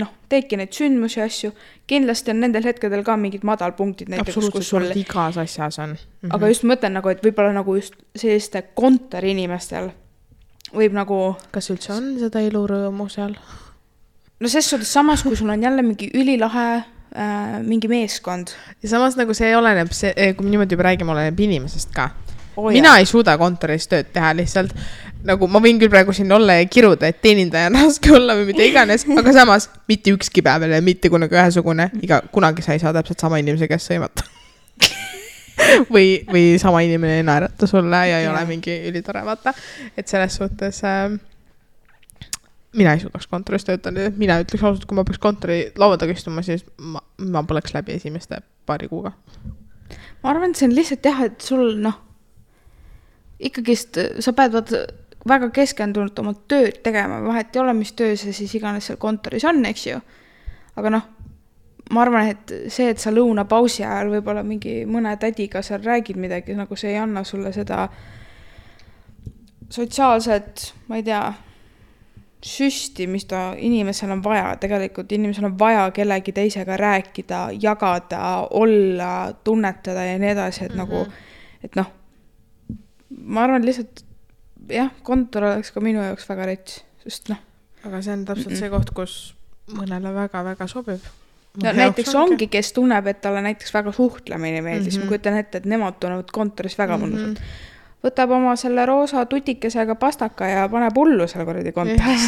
noh, teedki neid sündmusi asju. Kindlasti on nendel hetkedel ka mingid madalpunktid. Absoluutselt, sul igas asjas on. Aga just mõtlen nagu, et võib-olla nagu just selliste kontori inimestel võib nagu... Kas üldse on seda elurõõmu seal? No ses suhtes samas, kui sul on jälle mingi ülilahe mingi meeskond. Ja samas nagu see oleneb, kui me niimoodi juba räägime, oleneb inimesest ka. Mina ei suuda kontoris tööd teha lihtsalt. Nagu ma võin küll praegu siin olla ja kiruda, et teenindaja on raske olla või mida iganes, aga samas mitte ükski päev ja mitte kunagi ühesugune. Kunagi sa ei saa täpselt sama inimese käest sõimata. või sama inimene ei naerata sulle ja ei ole mingi ülitore, vaata. Et selles suhtes... mina ei suudaks kontoris töötada, mina ütleks ausalt, kui ma peaks kontori laua taga istuma, siis ma poleks läbi esimeste paari kuuga. Ma arvan, et see on lihtsalt jah, et sul noh, ikkagist sa pead väga keskendunult oma tööd tegema, vahet ei ole, mis töö see siis iganes seal kontoris on, eks ju. Aga noh, ma arvan, et see, et sa lõunapausi ajal võib-olla mingi mõne tädiga seal räägid midagi, nagu see ei anna sulle seda sotsiaalset, ma ei tea, süsti, mis ta inimesel on vaja. Tegelikult inimesel on vaja kellegi teisega rääkida, jagada, olla, tunnetada ja nii edasi, et nagu, et noh, ma arvan lihtsalt, jah, kontor oleks ka minu jaoks väga rets, sest noh. Aga see on täpselt see koht, kus mõnele väga-väga sobib. No, näiteks ongi, kes tunneb, et talle näiteks väga suhtlemine meeldis. Ma kujutan ette, et nemad tunnevad kontoris väga mõnusalt. Võtab oma selle roosa tutikesega pastaka ja paneb hullu selle korradi kontoris.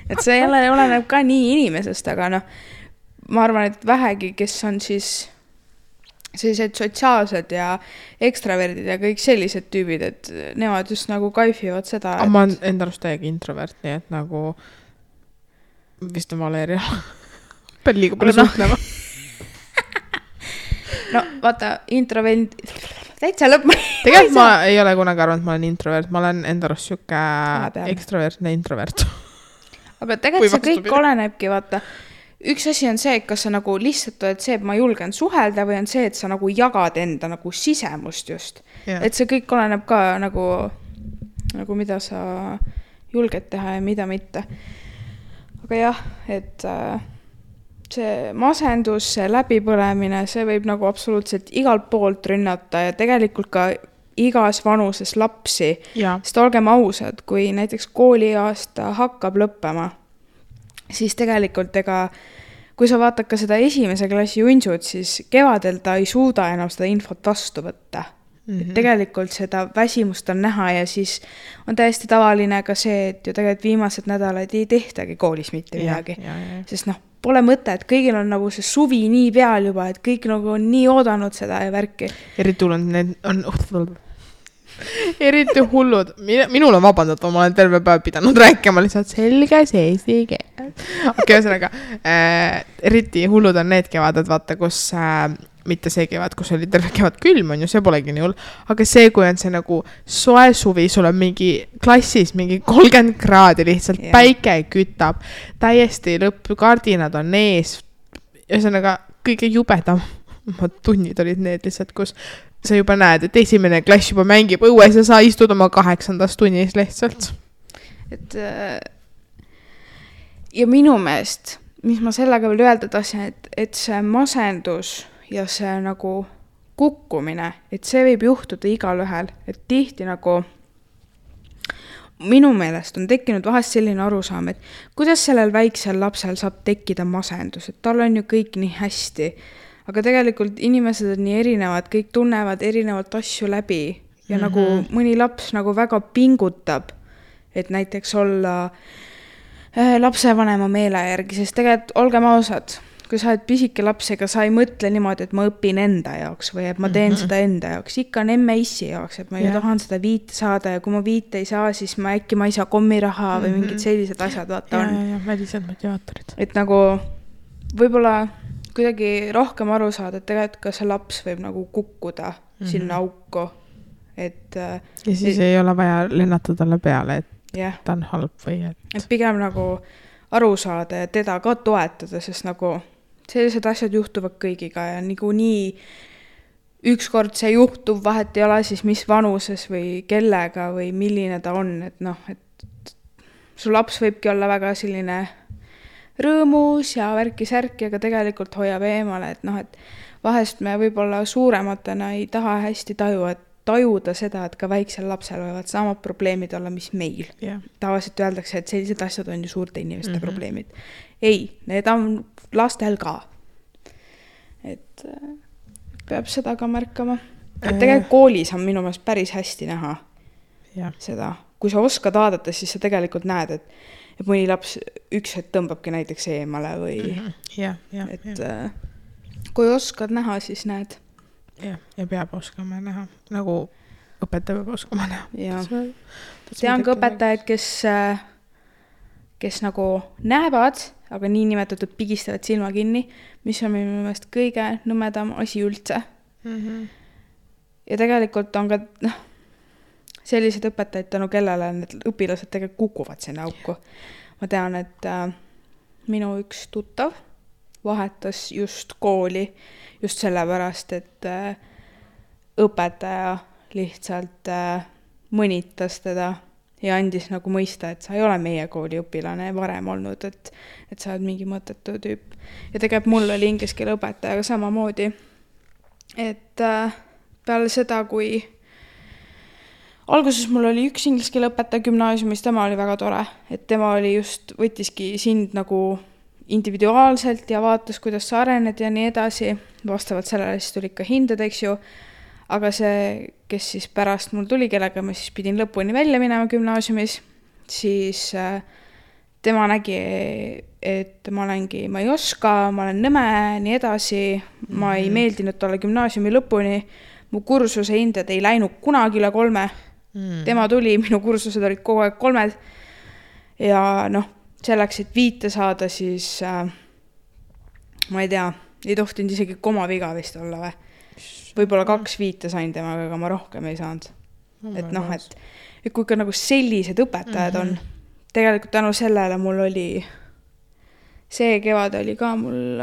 Et see jälle oleneb ka nii inimesest, aga noh, ma arvan, et vähegi, kes on siis sellised sotsiaalsed ja ekstraverdid ja kõik sellised tüübid, et nemad just nagu kaifivad seda. Et... Ma olen enda arust täiega introvert, nii et nagu vist on Valeria. Pean liiga palju suhtlema. No vaata, introvert... Täitsa lõpp. Tegelikult ma ei ole kunagi arvanud, et ma olen introvert. Ma olen enda arust siuke ekstravertne introvert. Aga tegelikult see kõik olenebki, vaata. Üks asi on see, et kas sa nagu lihtsalt oled see, et ma julgen suhelda või on see, et sa nagu jagad enda nagu sisemust just. Ja. Et see kõik oleneb ka nagu mida sa julged teha ja mida mitte. Aga jah, et... see masendus, see läbipõlemine, see võib nagu absoluutselt igalt poolt rünnata ja tegelikult ka igas vanuses lapsi. Sest olgem ausad, kui näiteks kooliaasta hakkab lõppema, siis tegelikult kui sa vaatad ka seda esimese klassi junsud, siis kevadel ta ei suuda enam seda infot vastu võtta. Et tegelikult seda väsimust on näha ja siis on täiesti tavaline ka see, et ju tegelikult viimased nädalad ei tehtagi koolis mitte midagi. Sest noh, pole mõte, et kõigil on nagu see suvi nii peal juba, et kõik nagu on nii oodanud seda ja värki. Eriti hullud. Minul on vabandatud, ma olen terve päev pidanud rääkima lihtsalt selges eesti keel. Okei, ühesõnaga, eriti hullud on need kevaded, vaata, kus mitte see kevad, kus oli terve kevad külm on ju, see polegi nii hull, aga see, kui on see nagu soe suvi, sul on mingi klassis mingi 30 kraadi lihtsalt, päike kütab, täiesti lõpp, kardinad on ees, ühesõnaga kõige jubedam tunnid olid need lihtsalt, kus sa juba näed, et esimene klass juba mängib õues ja sa istud oma 8. tunnis lihtsalt. Et ja minu meelest, mis ma sellega veel öelda tahtsin, et see masendus ja see nagu kukkumine, et see võib juhtuda igal ühel, et tihti nagu minu meelest on tekkinud vahest selline arusaam, et kuidas sellel väiksel lapsel saab tekkida masendus, et tal on ju kõik nii hästi, aga tegelikult inimesed on nii erinevad, kõik tunnevad erinevalt asju läbi ja nagu mõni laps nagu väga pingutab, et näiteks olla lapsevanema meele järgi, sest tegelikult olgem ausad, kui sa oled pisike laps, ega sa ei mõtle niimoodi, et ma õpin enda jaoks või et ma teen seda enda jaoks. Ikka on emme issi jaoks, et ma ju tahan seda 5 saada ja kui ma 5 ei saa, siis ma äkki ma ei saa kommiraha või mingid sellised asjad vaata on. Ja välised motivaatorid. Et nagu võib-olla kuidagi rohkem aru saada, et tegelikult ka see laps võib nagu kukkuda sinna auku. Et, ja siis ei ole vaja lennata talle peale, et ta on halb või et pigem nagu aru saada ja teda ka toetada, sest nagu sellised asjad juhtuvad kõigiga ja nii ükskord see juhtub, vahet ei ole siis mis vanuses või kellega või milline ta on, et noh, et su laps võibki olla väga selline rõõmus ja värki-särki, aga tegelikult hoiab eemale, et noh, et vahest me võib-olla suurematena ei taha hästi tajuda seda, et ka väiksel lapsel võivad samad probleemid olla, mis meil. Tavaliselt öeldakse, et sellised asjad on ju suurte inimeste probleemid. Ei, need on lastel ka. Et peab seda ka märkama. Et tegelikult koolis on minu meelest päris hästi näha seda. Kui sa oskad vaadata, siis sa tegelikult näed, et mõni laps üks hetk tõmbabki näiteks eemale või kui oskad näha, siis näed. Ja peab oskama näha, nagu õpetaja peab oskama näha. Tean ka õpetajaid, kes nagu näevad, aga nii nimetatud pigistavad silma kinni, mis on minu meelest kõige nõmedam asi üldse. Ja tegelikult on ka sellised õpetajad tänu kellele need õpilased tegelikult kukuvad sinna auku. Ma tean, et minu üks tuttav vahetas just kooli just sellepärast, et õpetaja lihtsalt mõnitas teda ja andis nagu mõista, et sa ei ole meie kooli õpilane varem olnud, et sa oled mingi mõttetu tüüp. Ja tegelikult mul oli inglise keele õpetajaga samamoodi, et peale seda, kui alguses mul oli üks inglise keele õpetaja gümnaasiumis, tema oli väga tore, et tema oli just, võttiski sind nagu individuaalselt ja vaatas, kuidas sa arened ja nii edasi. Vastavalt sellele siis tuli ikka hinded, eks ju. Aga see, kes siis pärast mul tuli, kellega ma siis pidin lõpuni välja minema gümnaasiumis, siis tema nägi, et ma ei oska, ma olen nõme, nii edasi. Ma ei meeldinud talle gümnaasiumi lõpuni. Mu kursuse hinded ei läinud kunagi üle 3. Tema tuli, minu kursused olid kogu aeg 3. Ja noh, selleks, et 5 saada, siis ma ei tea, ei tohtinud isegi komaviga vist olla või. Võib-olla 2 5 sain temaga, aga ma rohkem ei saanud. Et noh, et kui ka nagu sellised õpetajad on, tegelikult tänu sellele mul oli, see kevad oli ka mul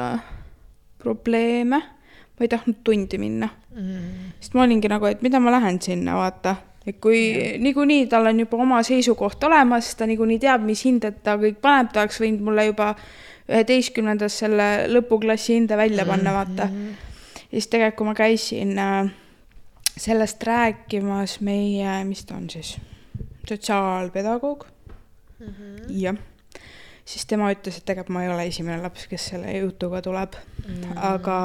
probleeme, ma ei tahtnud tundi minna. Sest ma olingi nagu, et mida ma lähen sinna, vaata. Et kui niikuinii tal on juba oma seisukoht olemas, ta niikuinii teab, mis hinded ta kõik paneb, ta oleks võinud mulle juba 11. selle lõpuklassi hinde välja panna, vaata. Ja siis tegelikult, kui ma käisin sellest rääkimas meie, mis ta on siis, sotsiaalpedagoog. Ja siis tema ütles, et tegelikult ma ei ole esimene laps, kes selle jutuga tuleb. Aga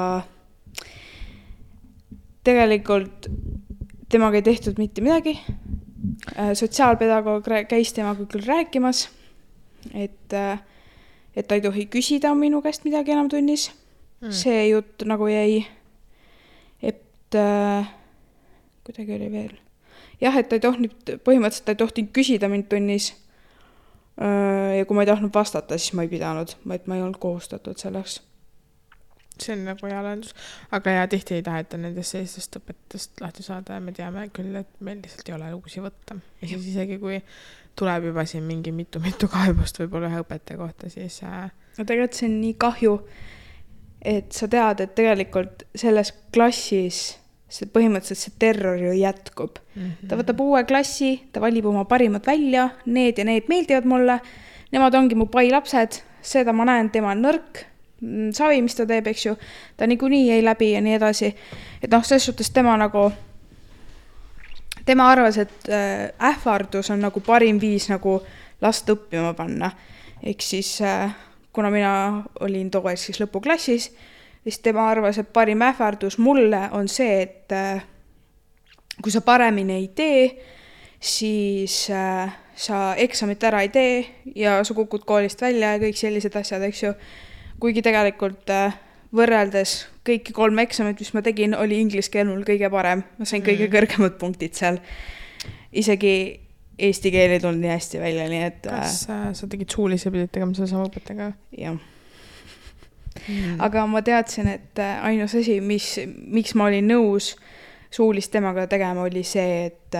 tegelikult temaga ei tehtud mitte midagi. Sotsiaalpedagoog käis temaga küll rääkimas, et ta ei tohi küsida minu käest midagi enam tunnis. See jutt nagu jäi, et kuidagi oli veel. Jah, et ta ei tohtinud, põhimõtteliselt ta ei tohtinud küsida mind tunnis. Ja kui ma ei tahtnud vastata, siis ma ei pidanud, et ma ei olnud kohustatud selleks. See on nagu hea lahendus. Aga ja tihti ei taheta nendest sellistest õpetust lahti saada ja me teame küll, et meil lihtsalt ei ole uusi võtta. Ja siis isegi kui tuleb juba siin mingi mitu kaebust võib-olla ühe õpetaja kohta, siis... No tegelikult see on nii kahju, et sa tead, et tegelikult selles klassis see põhimõtteliselt see terror ju jätkub. Ta võtab uue klassi, ta valib oma parimad välja, need ja need meeldivad mulle, nemad ongi mu pai lapsed, seda ma näen, tema on nõrk, savi, mis ta teeb, eks ju, ta niikuinii ei läbi ja nii edasi. Et noh, selles suhtes tema arvas, et ähvardus on nagu parim viis nagu last õppima panna. Ehk siis, kuna mina olin too siis lõpuklassis, siis tema arvas, et parim ähvardus mulle on see, et kui sa paremini ei tee, siis sa eksamit ära ei tee ja sa kukud koolist välja ja kõik sellised asjad, eks ju. kuigi tegelikult võrreldes kõiki 3 eksamit, mis ma tegin, oli inglise keel mul kõige parem. Ma sain kõige kõrgemad punktid seal. Isegi eesti keel ei tulnud nii hästi välja, nii et... Kas sa tegid suulise pidid tegema selle sama õpetajaga? Jah. Aga ma teadsin, et ainus asi, miks ma olin nõus suulist temaga tegema, oli see, et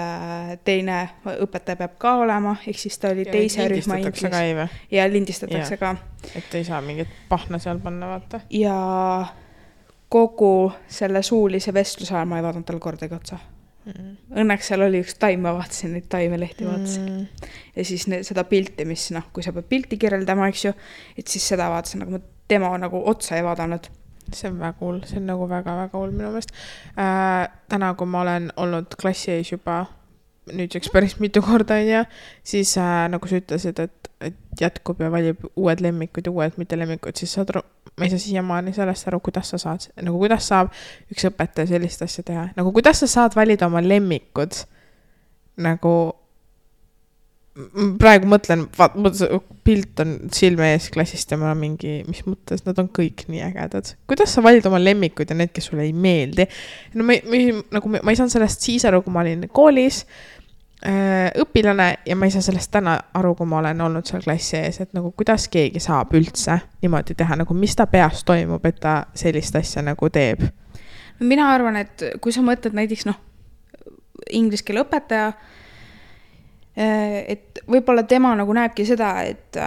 teine õpetaja peab ka olema, ehk siis ta oli teise rühma inglis. Ja lindistatakse ka. Et ei saa mingit pahna seal panna, vaata. Ja kogu selle suulise vestluse ajal ma ei vaadanud tal kordagi otsa. Õnneks seal oli üks taim, ma vaatasin neid taimelehti vaatasin. Ja siis seda pilti, mis kui sa pead pilti kirjeldama, eks ju, et siis seda vaatasin, aga ma tema nagu otsa ei vaadanud. See on väga cool, see on nagu väga-väga cool minu meelest. Täna, kui ma olen olnud klassi ees juba nüüdseks päris mitu korda, siis nagu sa ütlesid, et jätkub ja valib uued lemmikud ja uued mitte lemmikud, siis ma ei saa siiamaani sellest aru, kuidas sa saad, nagu kuidas saab üks õpetaja sellist asja teha. Nagu kuidas sa saad valida oma lemmikud, nagu praegu mõtlen, pilt on silme ees klassist ja ma olen mingi, mis mõttes, nad on kõik nii ägedad. Kuidas sa valid oma lemmikud ja need, kes sulle ei meeldi? No ma ei saanud sellest siis aru, kui ma olin koolis õpilane ja ma ei saa sellest täna aru, kui ma olen olnud seal klassi ees, et nagu kuidas keegi saab üldse niimoodi teha, nagu mis ta peas toimub, et ta sellist asja nagu teeb? Mina arvan, et kui sa mõtled näiteks inglise keele õpetaja, et võib-olla tema nagu näebki seda, et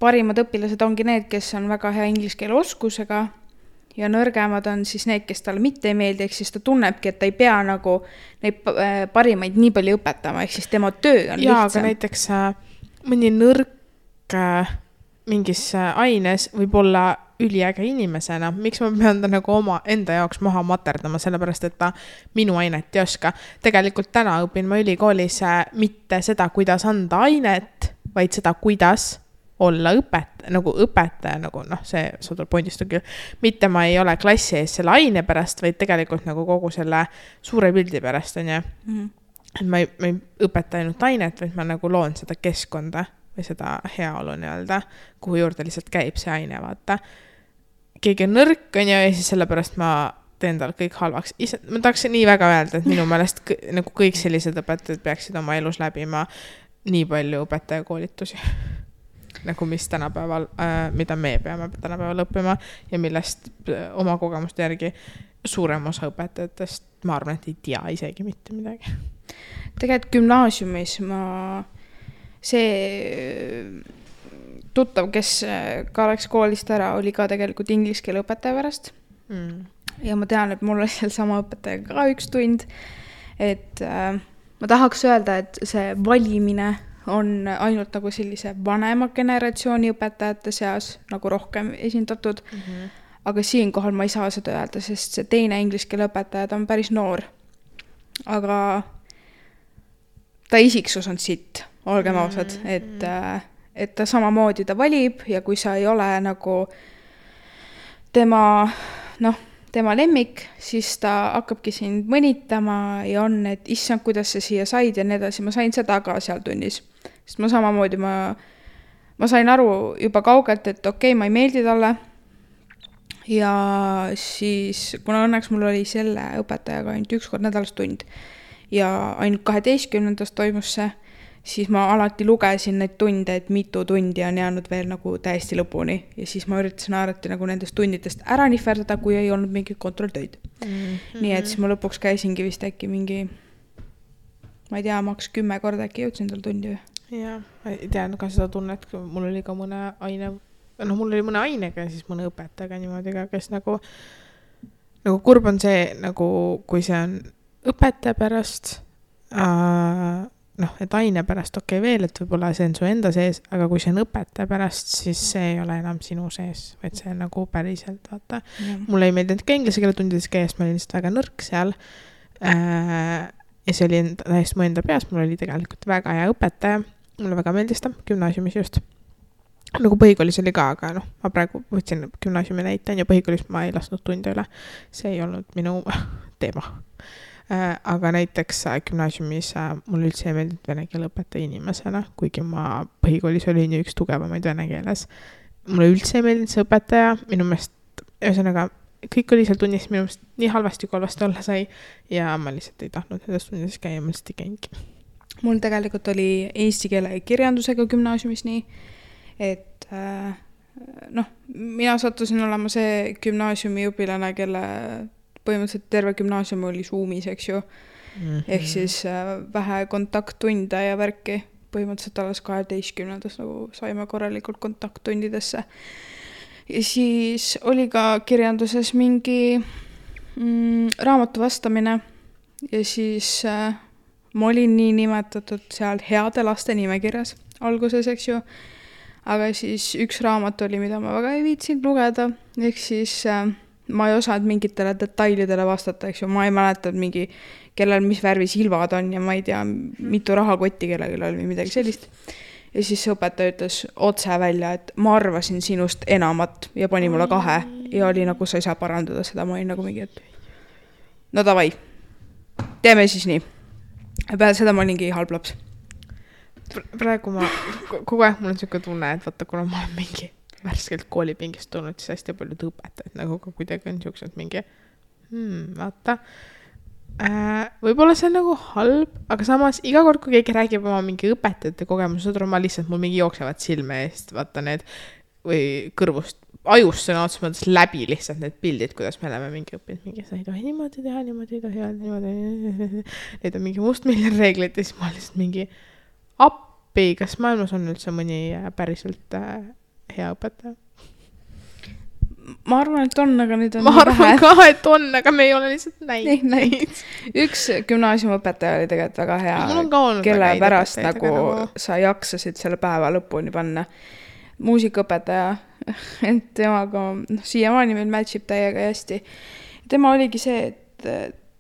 parimad õpilased ongi need, kes on väga hea inglise keele oskusega ja nõrgemad on siis need, kes talle mitte ei meeldi, ehk siis ta tunnebki, et ta ei pea nagu neid parimaid nii palju õpetama, ehk siis tema töö on lihtsam. Aga näiteks mõni nõrk mingis aines võib olla üliäge inimesena. Miks ma pean ta nagu oma enda jaoks maha materdama, sellepärast, et ta minu ainet ei oska. Tegelikult täna õpin ma ülikoolis mitte seda, kuidas anda ainet, vaid seda, kuidas olla õpetaja, nagu see saadul pointist on küll. Mitte ma ei ole klassi ees selle aine pärast, vaid tegelikult nagu kogu selle suure pildi pärast on. Et ma ei õpeta ainult ainet, vaid ma nagu loon seda keskkonda või seda heaolu nii-öelda, kuhu juurde lihtsalt käib see aine, vaata. Keegi on nõrk on ja siis sellepärast ma teen tal kõik halvaks. Ma tahaks nii väga öelda, et minu meelest nagu kõik sellised õpetajad peaksid oma elus läbima nii palju õpetajakoolitusi. Nagu mis tänapäeval, mida me peame tänapäeval õppima ja millest oma kogemuste järgi suurem osa õpetajatest, ma arvan, et ei tea isegi mitte midagi. Tegelikult gümnaasiumis see tuttav, kes ka läks koolist ära, oli ka tegelikult inglise keele õpetaja pärast. Ja ma tean, et mul oli seal sama õpetaja ka üks tund. Et ma tahaks öelda, et see valimine on ainult nagu sellise vanema generatsiooni õpetajate seas nagu rohkem esindatud. Aga siinkohal ma ei saa seda öelda, sest see teine inglise keele õpetaja on päris noor. Aga ta isiksus on sitt, olgem ausad, et ta samamoodi ta valib ja kui sa ei ole nagu tema lemmik, siis ta hakkabki sind mõnitama ja on, et issand, kuidas sa siia said ja nii edasi. Ma sain seda ka seal tunnis, sest ma samamoodi ma sain aru juba kaugelt, et okei, ma ei meeldi talle ja siis kuna õnneks mul oli selle õpetajaga ainult üks kord nädalas tund ja ainult 12. toimus see, siis ma alati lugesin neid tunde, et mitu tundi on jäänud veel nagu täiesti lõpuni ja siis ma üritasin alati nagu nendest tundidest ära nihverdada, kui ei olnud mingit kontrolltöid. Nii et siis ma lõpuks käisingi vist äkki mingi, ma ei tea, maks 10 korda äkki jõudsin tal tundi. Jaa, ei tea ka seda tunnet, mul oli ka mõne aine, mul oli mõne ainega ja siis mõne õpetajaga niimoodi ka, kes nagu kurb on see, nagu kui see on õpetaja pärast, et aine pärast okei veel, et võib-olla see on su enda sees, aga kui see on õpetaja pärast, siis see ei ole enam sinu sees, vaid see on nagu päriselt, vaata. Mulle ei meeldinud ka inglise keele tundides käes, ma olin lihtsalt väga nõrk seal ja see oli täiesti mu enda peas, mul oli tegelikult väga hea õpetaja, mulle väga meeldis ta, gümnaasiumis just. Nagu põhikoolis oli ka, aga ma praegu võtsin gümnaasiumi näite ja põhikoolis ma ei lasknud tunde üle, see ei olnud minu teema. Aga näiteks gümnaasiumis mul üldse ei meeldinud vene keele õpetaja inimesena, kuigi ma põhikoolis olin ju üks tugevamaid vene keeles mulle üldse ei meeldinud see õpetaja, minu meelest, ühesõnaga, kõik oli seal tunnis minu meelest nii halvasti, kui halvasti olla sai ja ma lihtsalt ei tahtnud nendes tunnides käia, ma lihtsalt ei käingi. Mul tegelikult oli eesti keele ja kirjandusega gümnaasiumis nii, et mina sattusin olema see gümnaasiumi õpilane, kelle põhimõtteliselt terve gümnaasium oli Zoomis, eks ju. Ehk siis vähe kontakttunde ja värki. Põhimõtteliselt alles 12. nagu saime korralikult kontakttundidesse. Ja siis oli ka kirjanduses mingi raamatu vastamine ja siis ma olin nii nimetatud seal heade laste nimekirjas alguses, eks ju. Aga siis üks raamat oli, mida ma väga ei viitsinud lugeda, ehk siis ma ei osanud mingitele detailidele vastata, eks ju. Ma ei mäletanud mingi, kellel mis värvi silvad on ja ma ei tea, mitu rahakotti kellelgi oli või midagi sellist. Ja siis õpetaja ütles otse välja, et ma arvasin sinust enamat ja pani mulle 2 ja oli nagu, sa ei saa parandada seda, ma olin nagu mingi, et no davai, teeme siis nii. Ja peale seda ma olingi halb laps. Praegu ma, kogu aeg mul on selline tunne, et vaata, kuna ma olen mingi värskelt koolipingist tulnud, siis hästi palju õpetajad, nagu ka kuidagi on sellised mingi, vaata, võib-olla see on nagu halb, aga samas iga kord, kui keegi räägib oma mingi õpetajate kogemused, ma lihtsalt mul mingi jooksevad silme eest, vaata need, või kõrvust, ajust sõna otsa mõttes läbi lihtsalt need pildid, kuidas me oleme mingi õppinud, mingi sa ei tohi niimoodi teha, niimoodi ei tohi, niimoodi, need on mingi mustmiljon reeglid ja siis ma lihtsalt mingi appi, kas maailmas on üldse mõni päriselt hea õpetaja? Ma arvan, et on, aga nüüd on ma arvan ka, et on, aga me ei ole lihtsalt näinud. Üks gümnaasiumõpetaja oli tegelikult väga hea, kelle pärast nagu sa jaksasid selle päeva lõpuni panna. Muusikaõpetaja, et temaga siiamaani meil matchib täiega hästi. Tema oligi see, et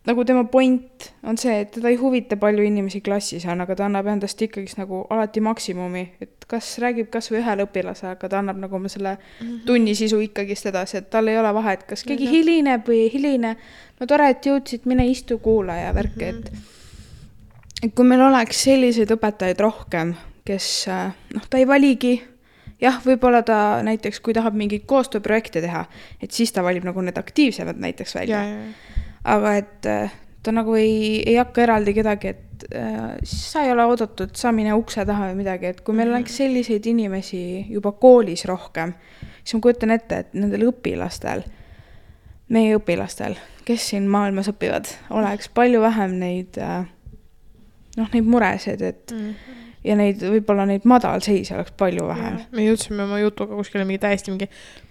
nagu tema point on see, et teda ei huvita palju inimesi klassis on, aga ta annab endast ikkagi nagu alati maksimumi, et kas räägib kas või ühele õpilase, aga ta annab nagu selle tunnisisu ikkagist edasi, et tal ei ole vahe, et kas keegi hilineb või ei hiline, no tore, et jõudsid, mine istu kuula ja värke, et kui meil oleks selliseid õpetajaid rohkem, kes ta ei valigi, jah, võib-olla ta näiteks, kui tahab mingit koostööprojekte teha, et siis ta valib nagu need aktiivsemad näiteks välja. Aga et ta nagu ei hakka eraldi kedagi, et siis sa ei ole oodatud, sa mine ukse taha või midagi, et kui meil oleks selliseid inimesi juba koolis rohkem, siis ma kujutan ette, et nendel õpilastel, meie õpilastel, kes siin maailmas õpivad, oleks palju vähem neid muresid, et ja neid, võib-olla neid madalseisi oleks palju vähem. Me jõudsime oma jutuga kuskile mingi täiesti mingi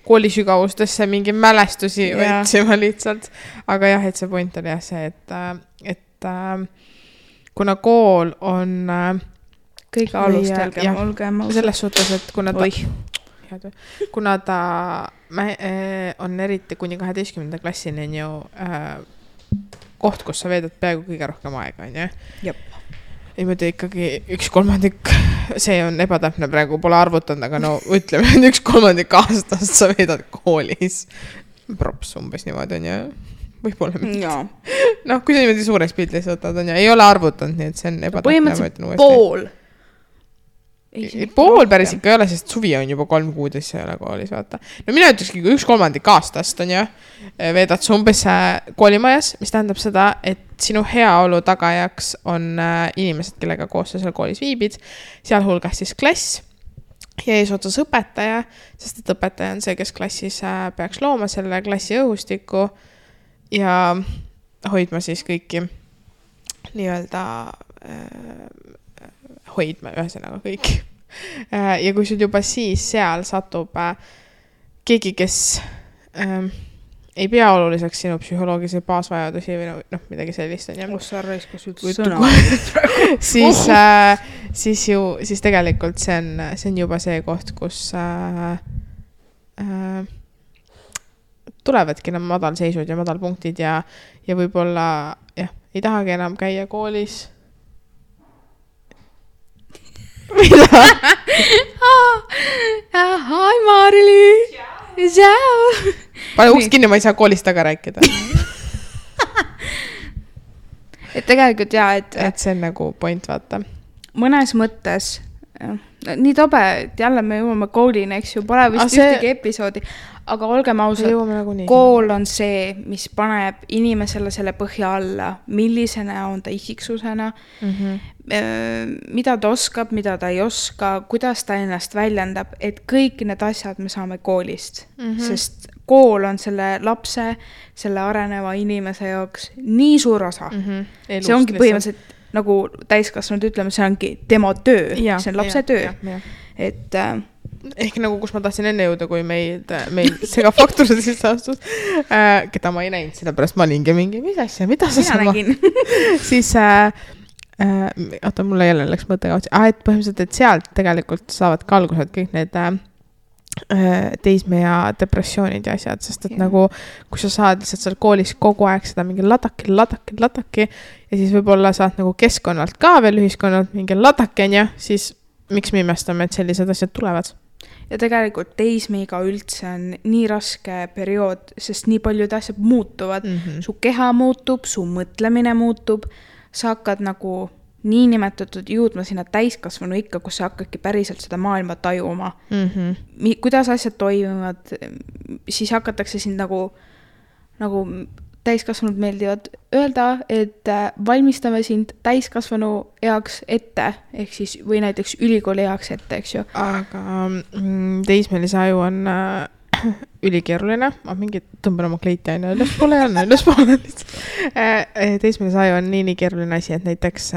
koolisügavustesse mingi mälestusi võtsime lihtsalt. Aga jah, et see point oli jah see, et kuna kool on kõige alustelgem, olgem selles suhtes, et kuna ta on eriti kuni 12. klassini on ju koht, kus sa veedad peaaegu kõige rohkem aega, on ju? Jep. Niimoodi ikkagi 1/3, see on ebatäpne praegu, pole arvutanud, aga no ütleme, 1/3 aastast sa veedad koolis. Props umbes niimoodi on ju, võib-olla mitte. No, kui sa niimoodi suureks pildis võtad, on ju, ei ole arvutanud, nii et see on ebatäpne. Põhimõtteliselt pool. Pool päris ikka ei ole, sest suvi on juba 3 kuud, siis ei ole koolis, vaata. No mina ütleski, kui 1/3 aastast on ju, veedad sa umbes koolimajas, mis tähendab seda, et sinu heaolu tagajaks on inimesed, kellega koos sa seal koolis viibid, sealhulgas siis klass ja eesotsas õpetaja, sest et õpetaja on see, kes klassis peaks looma selle klassi õhustiku ja hoidma siis kõiki nii-öelda hoidma ühesõnaga kõik. Ja kui sul juba siis seal satub keegi, kes ei pea oluliseks sinu psühholoogilisi baasvajadusi või midagi sellist on. Siis tegelikult see on juba see koht, kus tulevadki enam madalseisud ja madalpunktid ja võib-olla ei tahagi enam käia koolis. Mida? Hi Marli! Ciao! Pane uks kinni, ma ei saa koolist taga rääkida. Et tegelikult et see on nagu point, vaata. Mõnes mõttes, nii tobe, et jälle me jõuame koolini, eks ju, pole vist ühtegi episoodi, aga olgem ausad, kool on see, mis paneb inimesele selle põhja alla, millisena on ta isiksusena, mida ta oskab, mida ta ei oska, kuidas ta ennast väljendab, et kõik need asjad me saame koolist, sest kool on selle lapse, selle areneva inimese jaoks nii suur osa. See ongi põhimõtteliselt nagu täiskasvanud ütleme, see ongi tema töö, see on lapse töö. Et ehk nagu, kus ma tahtsin enne jõuda, kui meil segafaktoride sisse astus, keda ma ei näinud, sellepärast ma olingi mingi, mis asja, mida sa mina nägin. Siis, mulle jälle läks mõttega, et põhimõtteliselt, et sealt tegelikult saavad ka algused kõik need teisme ja depressioonid ja asjad, sest et nagu, kui sa saad lihtsalt seal koolis kogu aeg seda mingi ladaki ja siis võib-olla saad nagu keskkonnalt ka veel ühiskonnalt mingi ladakene ja siis miks me imestame, et sellised asjad tulevad? Ja tegelikult teismeiga üldse on nii raske periood, sest nii paljud asjad muutuvad. Su keha muutub, su mõtlemine muutub, sa hakkad nagu niinimetatud jõudma sinna täiskasvanu ikka, kus sa hakkadki päriselt seda maailma tajuma. Kuidas asjad toimuvad, siis hakatakse sind nagu täiskasvanud meeldivad öelda, et valmistame sind täiskasvanu eaks ette, ehk siis, või näiteks ülikooli eaks ette, eks ju. Aga teismelise aju on ülikeeruline, ma mingi tõmban oma kleiti aina ülespoole lihtsalt. Teismelise aju on nii keeruline asi, et näiteks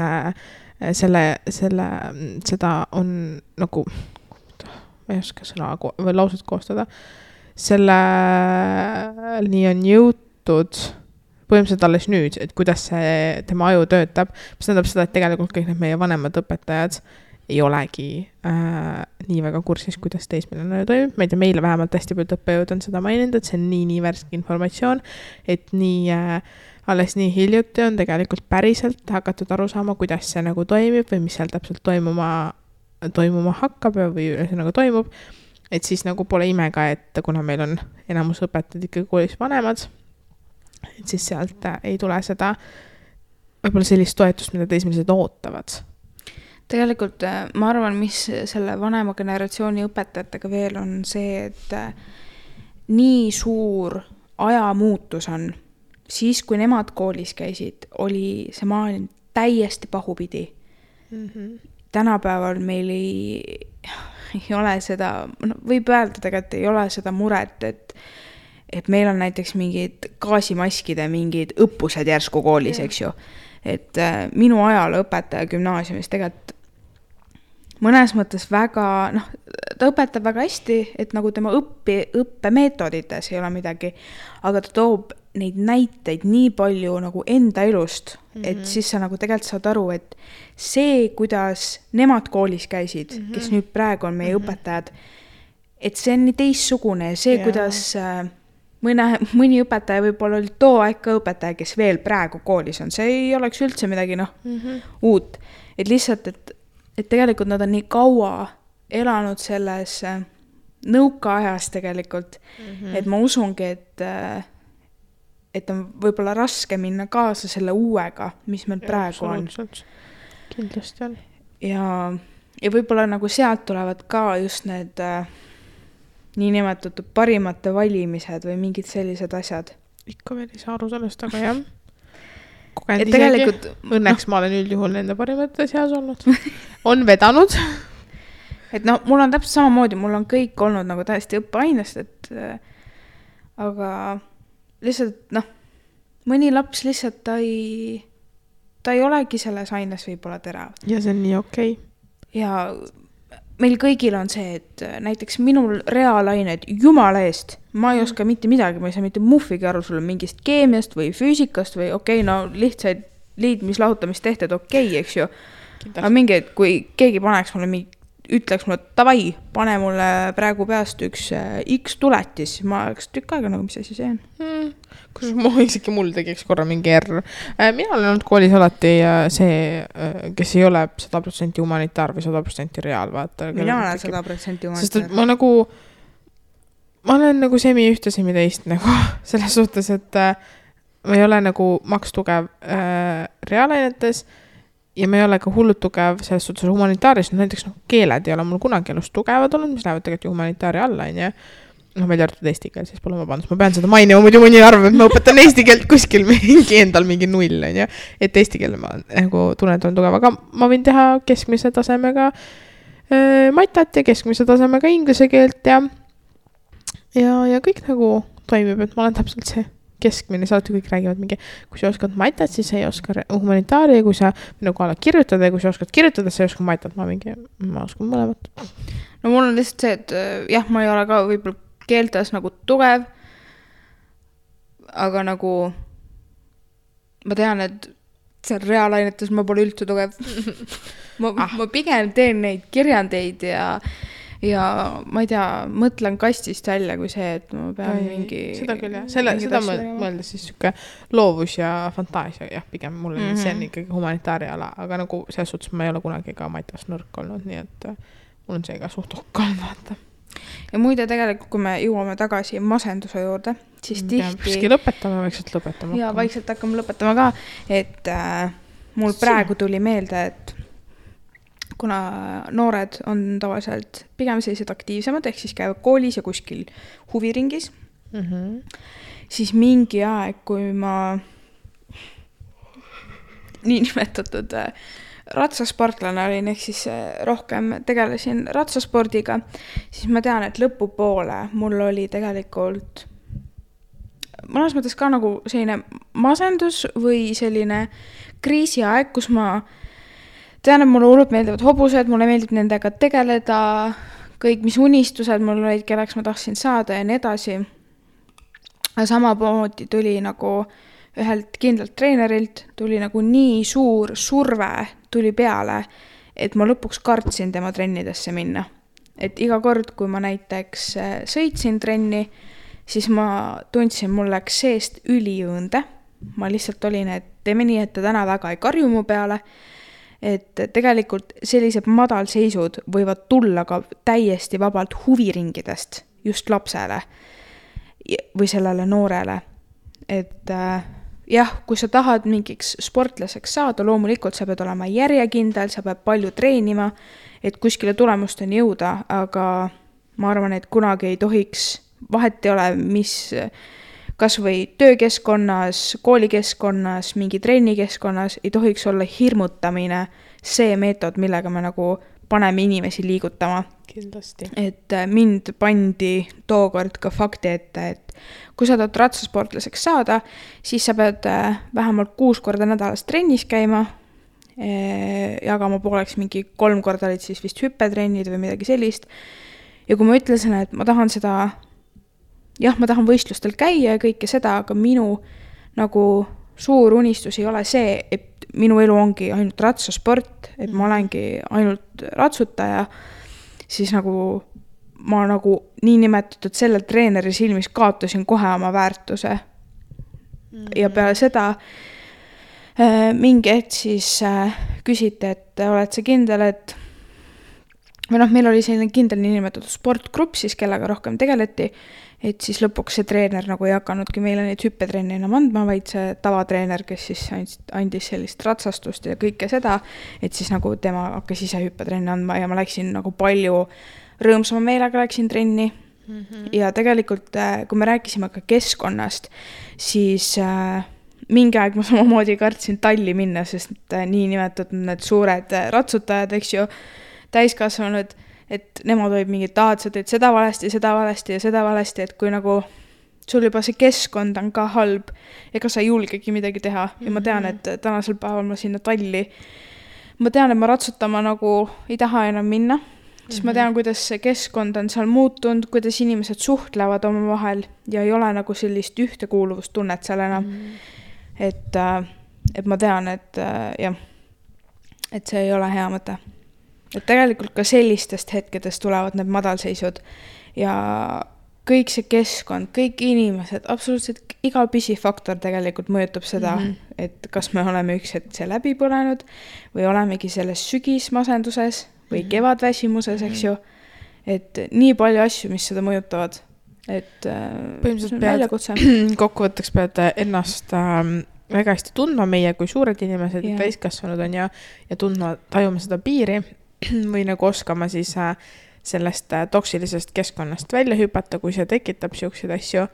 seda on nagu, ma ei oska sõna või lauset koostada, selle nii on jõutud põhimõtteliselt alles nüüd, et kuidas see tema aju töötab, mis tähendab seda, et tegelikult kõik need meie vanemad õpetajad ei olegi nii väga kursis, kuidas teismeline toimub. Ma ei tea, meile vähemalt hästi palju õppejõud on seda maininud, et see on nii värske informatsioon, et alles nii hiljuti on tegelikult päriselt hakatud aru saama, kuidas see nagu toimib või mis seal täpselt toimuma hakkab või nagu toimub. Et siis nagu pole imega, et kuna meil on enamus õpetajad ikkagi koolis vanemad, et siis sealt ei tule seda võib-olla sellist toetust, mida teismelised ootavad. Tegelikult ma arvan, mis selle vanema generatsiooni õpetajatega veel on see, et nii suur ajamuutus on. Siis, kui nemad koolis käisid, oli see maailm täiesti pahupidi. Tänapäeval meil ei ole seda, võib öelda tegelikult, ei ole seda muret, et meil on näiteks mingid gaasimaskide, mingid õppused järsku koolis, eks ju. Et minu ajal õpetaja gümnaasiumis tegelikult mõnes mõttes väga, ta õpetab väga hästi, et nagu tema õppemeetodites ei ole midagi, aga ta toob neid näiteid nii palju nagu enda elust, et siis sa nagu tegelikult saad aru, et see, kuidas nemad koolis käisid, kes nüüd praegu on meie õpetajad, et see on nii teissugune, see, kuidas mõni õpetaja võib-olla oli too aeg ka õpetaja, kes veel praegu koolis on, see ei oleks üldse midagi uut, et lihtsalt, et tegelikult nad on nii kaua elanud selles nõukaajas tegelikult, et ma usungi, et on võib-olla raske minna kaasa selle uuega, mis meil praegu on. Kindlasti on. Ja võib-olla nagu sealt tulevad ka just need niinimetatud parimate valimised või mingid sellised asjad. Ikka veel ei saa aru sellest, aga jah. Et tegelikult, õnneks ma olen üldjuhul nende parimate seas olnud. On vedanud. Et mul on täpselt samamoodi, mul on kõik olnud nagu täiesti õppeainest, aga lihtsalt, mõni laps lihtsalt ta ei olegi selles aines võib-olla terav. Ja see on nii okei. Ja meil kõigil on see, et näiteks minul reaalained, jumala eest, ma ei oska mitte midagi, ma ei saa mitte muffigi aru sulle mingist keemiast või füüsikast või lihtsaid liidmislahutamistehted eks ju. Aga mingi, kui keegi paneks mulle ütleks mulle, davai, pane mulle praegu peast üks X tuletis, ma oleks tükk aega nagu, mis asi see on. Kus isegi mul tegiks korra mingi R. Mina olen olnud koolis alati see, kes ei ole 100% humanitaar või 100% reaal, vaata. Mina olen 100% humanitaar. Sest ma olen nagu semi ühte, semi teist nagu selles suhtes, et ma ei ole nagu makstugev reaalainetes ja ma ei ole ka hullult tugev selles suhtes humanitaaris, näiteks keeled ei ole mul kunagi elus tugevad olnud, mis lähevad tegelikult ju humanitaari alla, on ju. Välja arvatud eesti keel, siis pole vabandust, ma pean seda mainima, muidu mõni arvab, et ma õpetan eesti keelt kuskil endal mingi null, on ju. Et eesti keel ma nagu tunnen, et on tugev, aga ma võin teha keskmise tasemega matat ja keskmise tasemega inglise keelt ja kõik nagu toimib, et ma olen täpselt see keskmine, saati kõik räägivad mingi, kui sa oskad matat, siis sa ei oska humanitaari, kui sa minuga oled kirjutada ja kui sa oskad kirjutada, sa ei oska matat, ma oskan mõlemat. No mul on lihtsalt see, et jah, ma ei ole ka võib-olla keeltes nagu tugev, aga nagu ma tean, et seal reaalainetes ma pole üldse tugev. ma pigem teen neid kirjandeid ja ma ei tea, mõtlen kastist välja kui see, et ma pean mingi... Seda küll, jah. Seda mõeldes siis siuke loovus ja fantaasia, jah, pigem mulle see on ikkagi humanitaari ala, aga nagu selles suhtes ma ei ole kunagi ka matas nõrk olnud, nii et mul on see ka suht okkal, vaata. Ja muide tegelikult, kui me jõuame tagasi masenduse juurde, siis tihti... vaikselt lõpetama. Ja vaikselt hakkame lõpetama ka, et mul praegu tuli meelde, et kuna noored on tavaliselt pigem sellised aktiivsemad, ehk siis käivad koolis ja kuskil huviringis, siis mingi aeg, kui ma nii nimetatud ratsasportlane olin, ehk siis rohkem tegelesin ratsaspordiga, siis ma tean, et lõpupoole mul oli tegelikult mõnes mõttes ka nagu selline masendus või selline kriisiaeg, kus ma tean, et mulle hullult meeldivad hobused, mulle meeldib nendega tegeleda, kõik mis unistused mul olid, kelleks ma tahtsin saada ja nii edasi. Aga samamoodi tuli nagu ühelt kindlalt treenerilt, tuli nagu nii suur surve tuli peale, et ma lõpuks kartsin tema trennidesse minna. Et iga kord, kui ma näiteks sõitsin trenni, siis ma tundsin, mul läks seest üliõõnde. Ma lihtsalt olin, et teeme nii, et ta täna väga ei karju mu peale. Et tegelikult sellised madalseisud võivad tulla ka täiesti vabalt huviringidest just lapsele või sellele noorele. Et jah, kui sa tahad mingiks sportlaseks saada, loomulikult sa pead olema järjekindel, sa pead palju treenima, et kuskile tulemusteni jõuda, aga ma arvan, et kunagi ei tohiks, vahet ei ole, mis kas või töökeskkonnas, koolikeskkonnas, mingi trennikeskkonnas, ei tohiks olla hirmutamine see meetod, millega me nagu paneme inimesi liigutama. Kindlasti. Et mind pandi tookord ka fakti ette, et kui sa tahad ratsasportlaseks saada, siis sa pead vähemalt 6 korda nädalas trennis käima, jagama pooleks mingi 3 korda olid siis vist hüppetrennid või midagi sellist. Ja kui ma ütlesin, et ma tahan seda, jah, ma tahan võistlustel käia ja kõike seda, aga minu nagu suur unistus ei ole see, et minu elu ongi ainult ratsasport, et ma olengi ainult ratsutaja, siis nagu ma nagu nii nimetatud sellel treeneri silmis kaotasin kohe oma väärtuse. Ja peale seda mingi hetk siis küsiti, et oled sa kindel, et või meil oli selline kindel nii nimetatud sportgrupp siis, kellega rohkem tegeleti, et siis lõpuks see treener nagu ei hakanudki meile neid hüppetrenni enam andma, vaid see tavatreener, kes siis andis sellist ratsastust ja kõike seda, et siis nagu tema hakkas ise hüppetrenni andma ja ma läksin nagu palju rõõmsama meelega läksin trenni. Ja tegelikult, kui me rääkisime ka keskkonnast, siis mingi aeg ma samamoodi kartsin talli minna, sest nii nimetatud need suured ratsutajad, eks ju, täiskasvanud, et nemad olid mingid sa teed seda valesti ja seda valesti, et kui nagu sul juba see keskkond on ka halb, ega sa ei julgegi midagi teha. Ja ma tean, et tänasel päeval ma sinna talli, ma tean, et ma ratsutama nagu ei taha enam minna, siis ma tean, kuidas see keskkond on seal muutunud, kuidas inimesed suhtlevad oma vahel ja ei ole nagu sellist ühtekuuluvustunnet seal enam. Et ma tean, et jah, et see ei ole hea mõte. Et tegelikult ka sellistest hetkedest tulevad need madalseisud ja kõik see keskkond, kõik inimesed, absoluutselt iga pisifaktor tegelikult mõjutab seda, et kas me oleme üks hetk see läbi põlenud või olemegi selles sügismasenduses või kevadväsimuses, eks ju, et nii palju asju, mis seda mõjutavad, et põhimõtteliselt kokkuvõtteks pead ennast väga hästi tundma meie kui suured inimesed ja täiskasvanud on ja tundma, tajuma seda piiri või nagu oskama siis sellest toksilisest keskkonnast välja hüpata, kui see tekitab siukseid asju.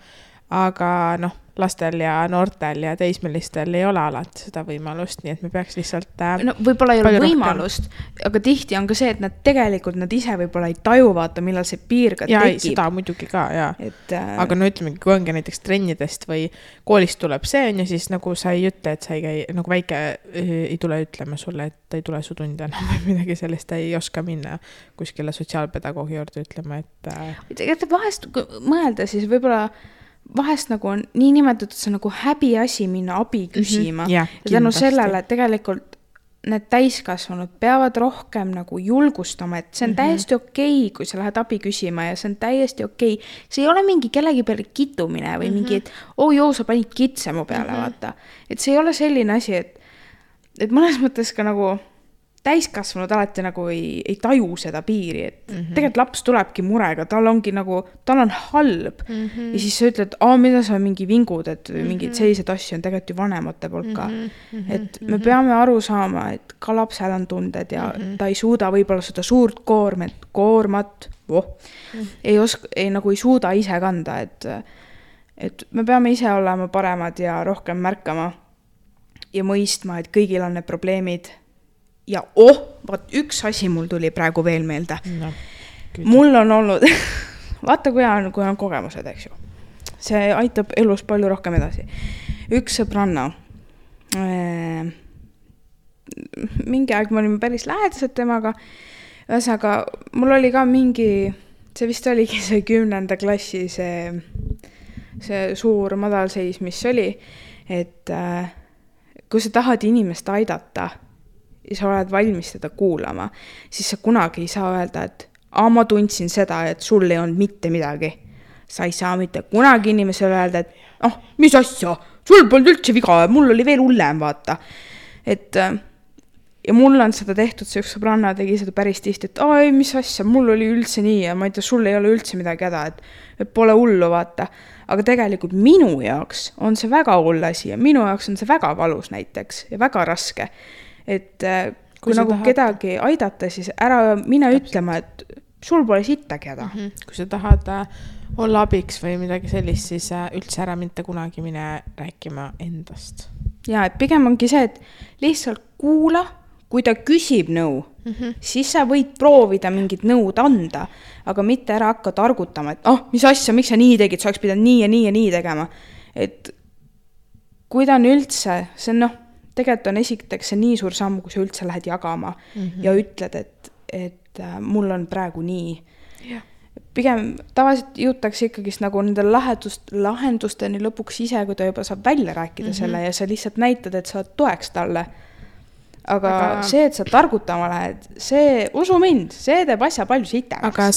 Aga noh, lastel ja noortel ja teismelistel ei ole alati seda võimalust, nii et me peaks lihtsalt no võib-olla ei ole võimalust, aga tihti on ka see, et nad tegelikult nad ise võib-olla ei taju vaata, millal see piir ka tekib. Ja seda muidugi ka, jaa. Aga no ütlemegi, kui ongi näiteks trennidest või koolist tuleb see on ja siis nagu sa ei ütle, et sa ei käi, nagu väike ei tule ütlema sulle, et ei tule su tunde enam või midagi sellist, ei oska minna kuskile sotsiaalpedagoogi juurde ütlema, et vahest mõelda siis võib-olla vahest nagu on nii nimetatud see nagu häbi asi minna abi küsima ja tänu sellele tegelikult need täiskasvanud peavad rohkem nagu julgustama, et see on täiesti okei, kui sa lähed abi küsima ja see on täiesti okei. See ei ole mingi kellegi peale kitumine või mingi, et joo, sa panid kitse mu peale, vaata. Et see ei ole selline asi, et mõnes mõttes ka nagu täiskasvanud alati nagu ei taju seda piiri, et tegelikult laps tulebki murega, tal ongi nagu, tal on halb ja siis sa ütled, mida sa mingi vingud, et mingid sellised asju on tegelikult ju vanemate poolt ka, et me peame aru saama, et ka lapsel on tunded ja ta ei suuda võib-olla seda suurt koormat ei suuda ise kanda, et me peame ise olema paremad ja rohkem märkama ja mõistma, et kõigil on need probleemid. Ja vaat üks asi mul tuli praegu veel meelde. No, mul on olnud, vaata kui on kogemused, eks ju. See aitab elus palju rohkem edasi. Üks sõbranna, mingi aeg me olime päris lähedased temaga, ühesõnaga mul oli ka mingi, see vist oligi see 10. klassi, see suur madalseis, mis oli, et kui sa tahad inimest aidata, ja sa oled valmis seda kuulama, siis sa kunagi ei saa öelda, et ma tundsin seda, et sul ei olnud mitte midagi. Sa ei saa mitte kunagi inimesele öelda, et mis asja, sul polnud üldse viga, mul oli veel hullem, vaata. Et, ja mul on seda tehtud, see üks sõbranna tegi seda päris tihti, et mis asja, mul oli üldse nii ja ma ei tea, sul ei ole üldse midagi häda, et pole hullu, vaata. Aga tegelikult minu jaoks on see väga hull asi ja minu jaoks on see väga valus näiteks ja väga raske. Et kui nagu kedagi aidata, siis ära mine ütlema, et sul pole sittagi häda. Kui sa tahad olla abiks või midagi sellist, siis üldse ära mitte kunagi mine rääkima endast. Ja, et pigem ongi see, et lihtsalt kuula, kui ta küsib nõu, siis sa võid proovida mingit nõud anda, aga mitte ära hakka targutama, et mis asja, miks sa nii tegid, sa oleks pidanud nii ja nii ja nii tegema. Et kui ta on üldse, see on tegelikult on esiteks see nii suur samm, kui sa üldse lähed jagama ja ütled, et mul on praegu nii. Yeah. Pigem tavaliselt jõutakse ikkagist nagu nende lahendusteni lõpuks ise, kui ta juba saab välja rääkida selle ja sa lihtsalt näitad, et sa oled toeks talle. Aga see, et sa targutama lähed, see, usu mind, see teeb asja palju sitemaks. Aga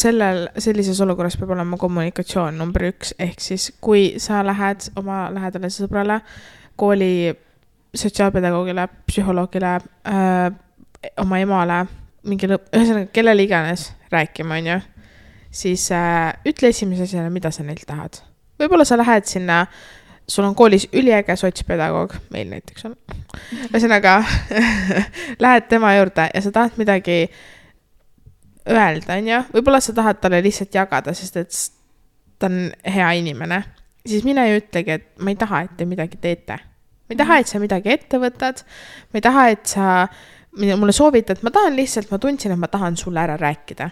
sellises olukorras peab olema kommunikatsioon number 1, ehk siis kui sa lähed oma lähedale sõbrale kooli sotsiaalpedagoogile, psühholoogile, oma emale, ühesõnaga kellele iganes rääkima, on ju, siis ütle esimese asjana, mida sa neilt tahad. Võib-olla sa lähed sinna, sul on koolis üliäge sotspedagoog, meil näiteks on. Ühesõnaga, lähed tema juurde ja sa tahad midagi öelda, on ju. Võib-olla sa tahad talle lihtsalt jagada, sest et ta on hea inimene. Siis mine ja ütlegi, et ma ei taha, et te midagi teete. Ma ei taha, et sa midagi ette võtad. Ma ei taha, et sa mulle soovitad. Ma tahan lihtsalt, ma tundsin, et ma tahan sulle ära rääkida.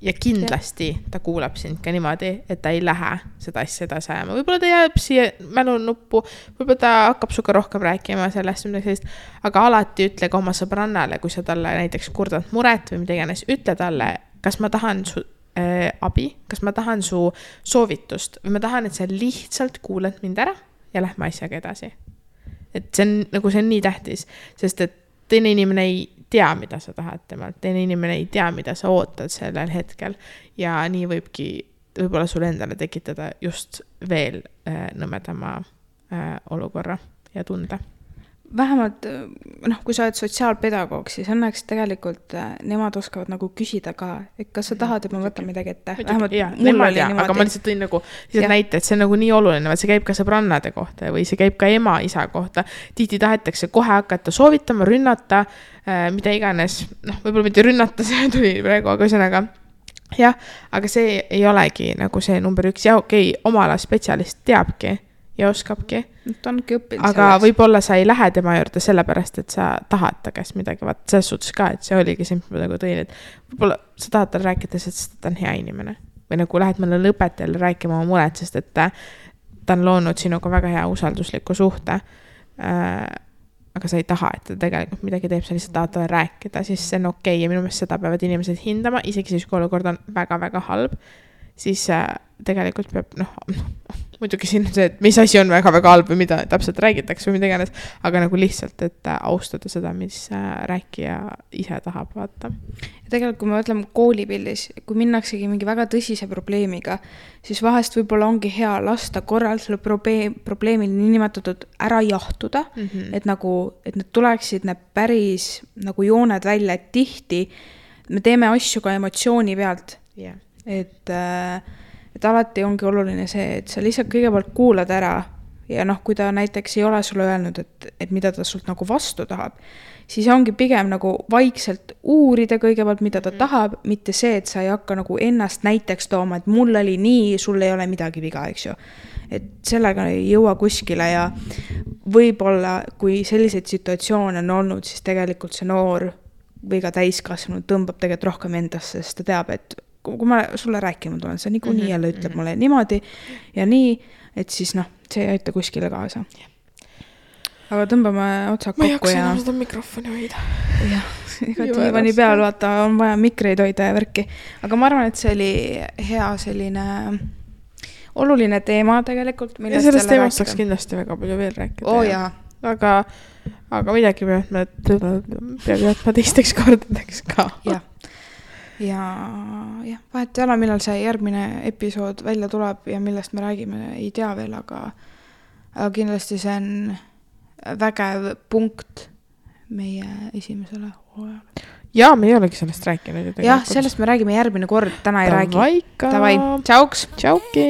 Ja kindlasti ta kuulab sind ka niimoodi, et ta ei lähe seda asja edasi ajama. Võib-olla ta jääb siia mälunuppu, võib-olla ta hakkab suga rohkem rääkima sellest, aga alati ütle ka oma sõbrannale, kui sa talle näiteks kurdad muret või mida iganes, ütle talle, kas ma tahan su abi, kas ma tahan su soovitust või ma tahan, et sa lihtsalt kuulad mind ära ja lähme asjaga edasi. Et see on nii tähtis, sest et teine inimene ei tea, mida sa tahad temalt, teine inimene ei tea, mida sa ootad sellel hetkel ja nii võibki võib-olla sulle endale tekitada just veel nõmedama olukorra ja tunde. vähemalt noh, kui sa oled sotsiaalpedagoog, siis õnneks tegelikult nemad oskavad nagu küsida ka, et kas sa tahad, et ma võtan midagi ette. Vähemalt mul oli niimoodi. Aga ma lihtsalt tõin nagu näite, et see on nagu nii oluline, see käib ka sõbrannade kohta või see käib ka ema, isa kohta. Tihti tahetakse kohe hakata soovitama, rünnata, mida iganes, noh, võib-olla mitte rünnata, see tuli praegu, aga ühesõnaga jah, aga see ei olegi nagu see number 1 ja okei, oma ala spetsialist teabki ja oskabki. Ta ongi õppinud aga sellest. Võib-olla sa ei lähe tema juurde sellepärast, et sa tahad ta käest midagi, vaat selles suhtes ka, et see oligi see, mis ma nagu tõin, et võib-olla sa tahad tal rääkida, sest ta on hea inimene. Või nagu lähed mõnele õpetajale rääkima oma mured, sest et ta on loonud sinuga väga hea usaldusliku suhte. Aga sa ei taha, et ta tegelikult midagi teeb, sa lihtsalt tahad talle rääkida, siis see on okei. Ja minu meelest seda peavad inimesed hindama, isegi siis kui olukord on väga-väga halb, siis tegelikult peab, muidugi siin see, et mis asi on väga-väga halb või mida täpselt räägitakse või mida iganes, aga nagu lihtsalt, et austada seda, mis rääkija ise tahab vaata. Ja tegelikult, kui me mõtleme koolipildis, kui minnaksegi mingi väga tõsise probleemiga, siis vahest võib-olla ongi hea lasta korral selle probleemil niinimetatud ära jahtuda, et need tuleksid need päris nagu jooned välja, et tihti me teeme asju ka emotsiooni pealt. Yeah. Et alati ongi oluline see, et sa lihtsalt kõigepealt kuulad ära ja kui ta näiteks ei ole sulle öelnud, et mida ta sult nagu vastu tahab, siis ongi pigem nagu vaikselt uurida kõigepealt, mida ta tahab, mitte see, et sa ei hakka nagu ennast näiteks tooma, et mul oli nii, sul ei ole midagi viga, eks ju. Et sellega ei jõua kuskile ja võib-olla, kui selliseid situatsioone on olnud, siis tegelikult see noor või ka täiskasvanud tõmbab tegelikult rohkem endasse, sest ta teab, et kui ma sulle rääkima tulen, see nii jälle ütleb mulle niimoodi ja nii, et siis see ei aita kuskile kaasa. Aga tõmbame otsad kokku ja... Ma ei jaksa seda mikrofoni hoida. Jah, ega diivani peal vaata, on vaja mikreid hoida ja värki. Aga ma arvan, et see oli hea selline oluline teema tegelikult. Ja sellest teemast saaks kindlasti väga palju veel rääkida. Jaa. Aga midagi peab jätma teisteks kordadeks ka. Jah. Ja vahet ei ole, millal see järgmine episood välja tuleb ja millest me räägime, ei tea veel, aga kindlasti see on vägev punkt meie esimesele hooajale. Ja me ei olegi sellest rääkinud. Jah, sellest me räägime järgmine kord, täna ei räägi. Tavaika. Tavai, tšauks. Tšauki.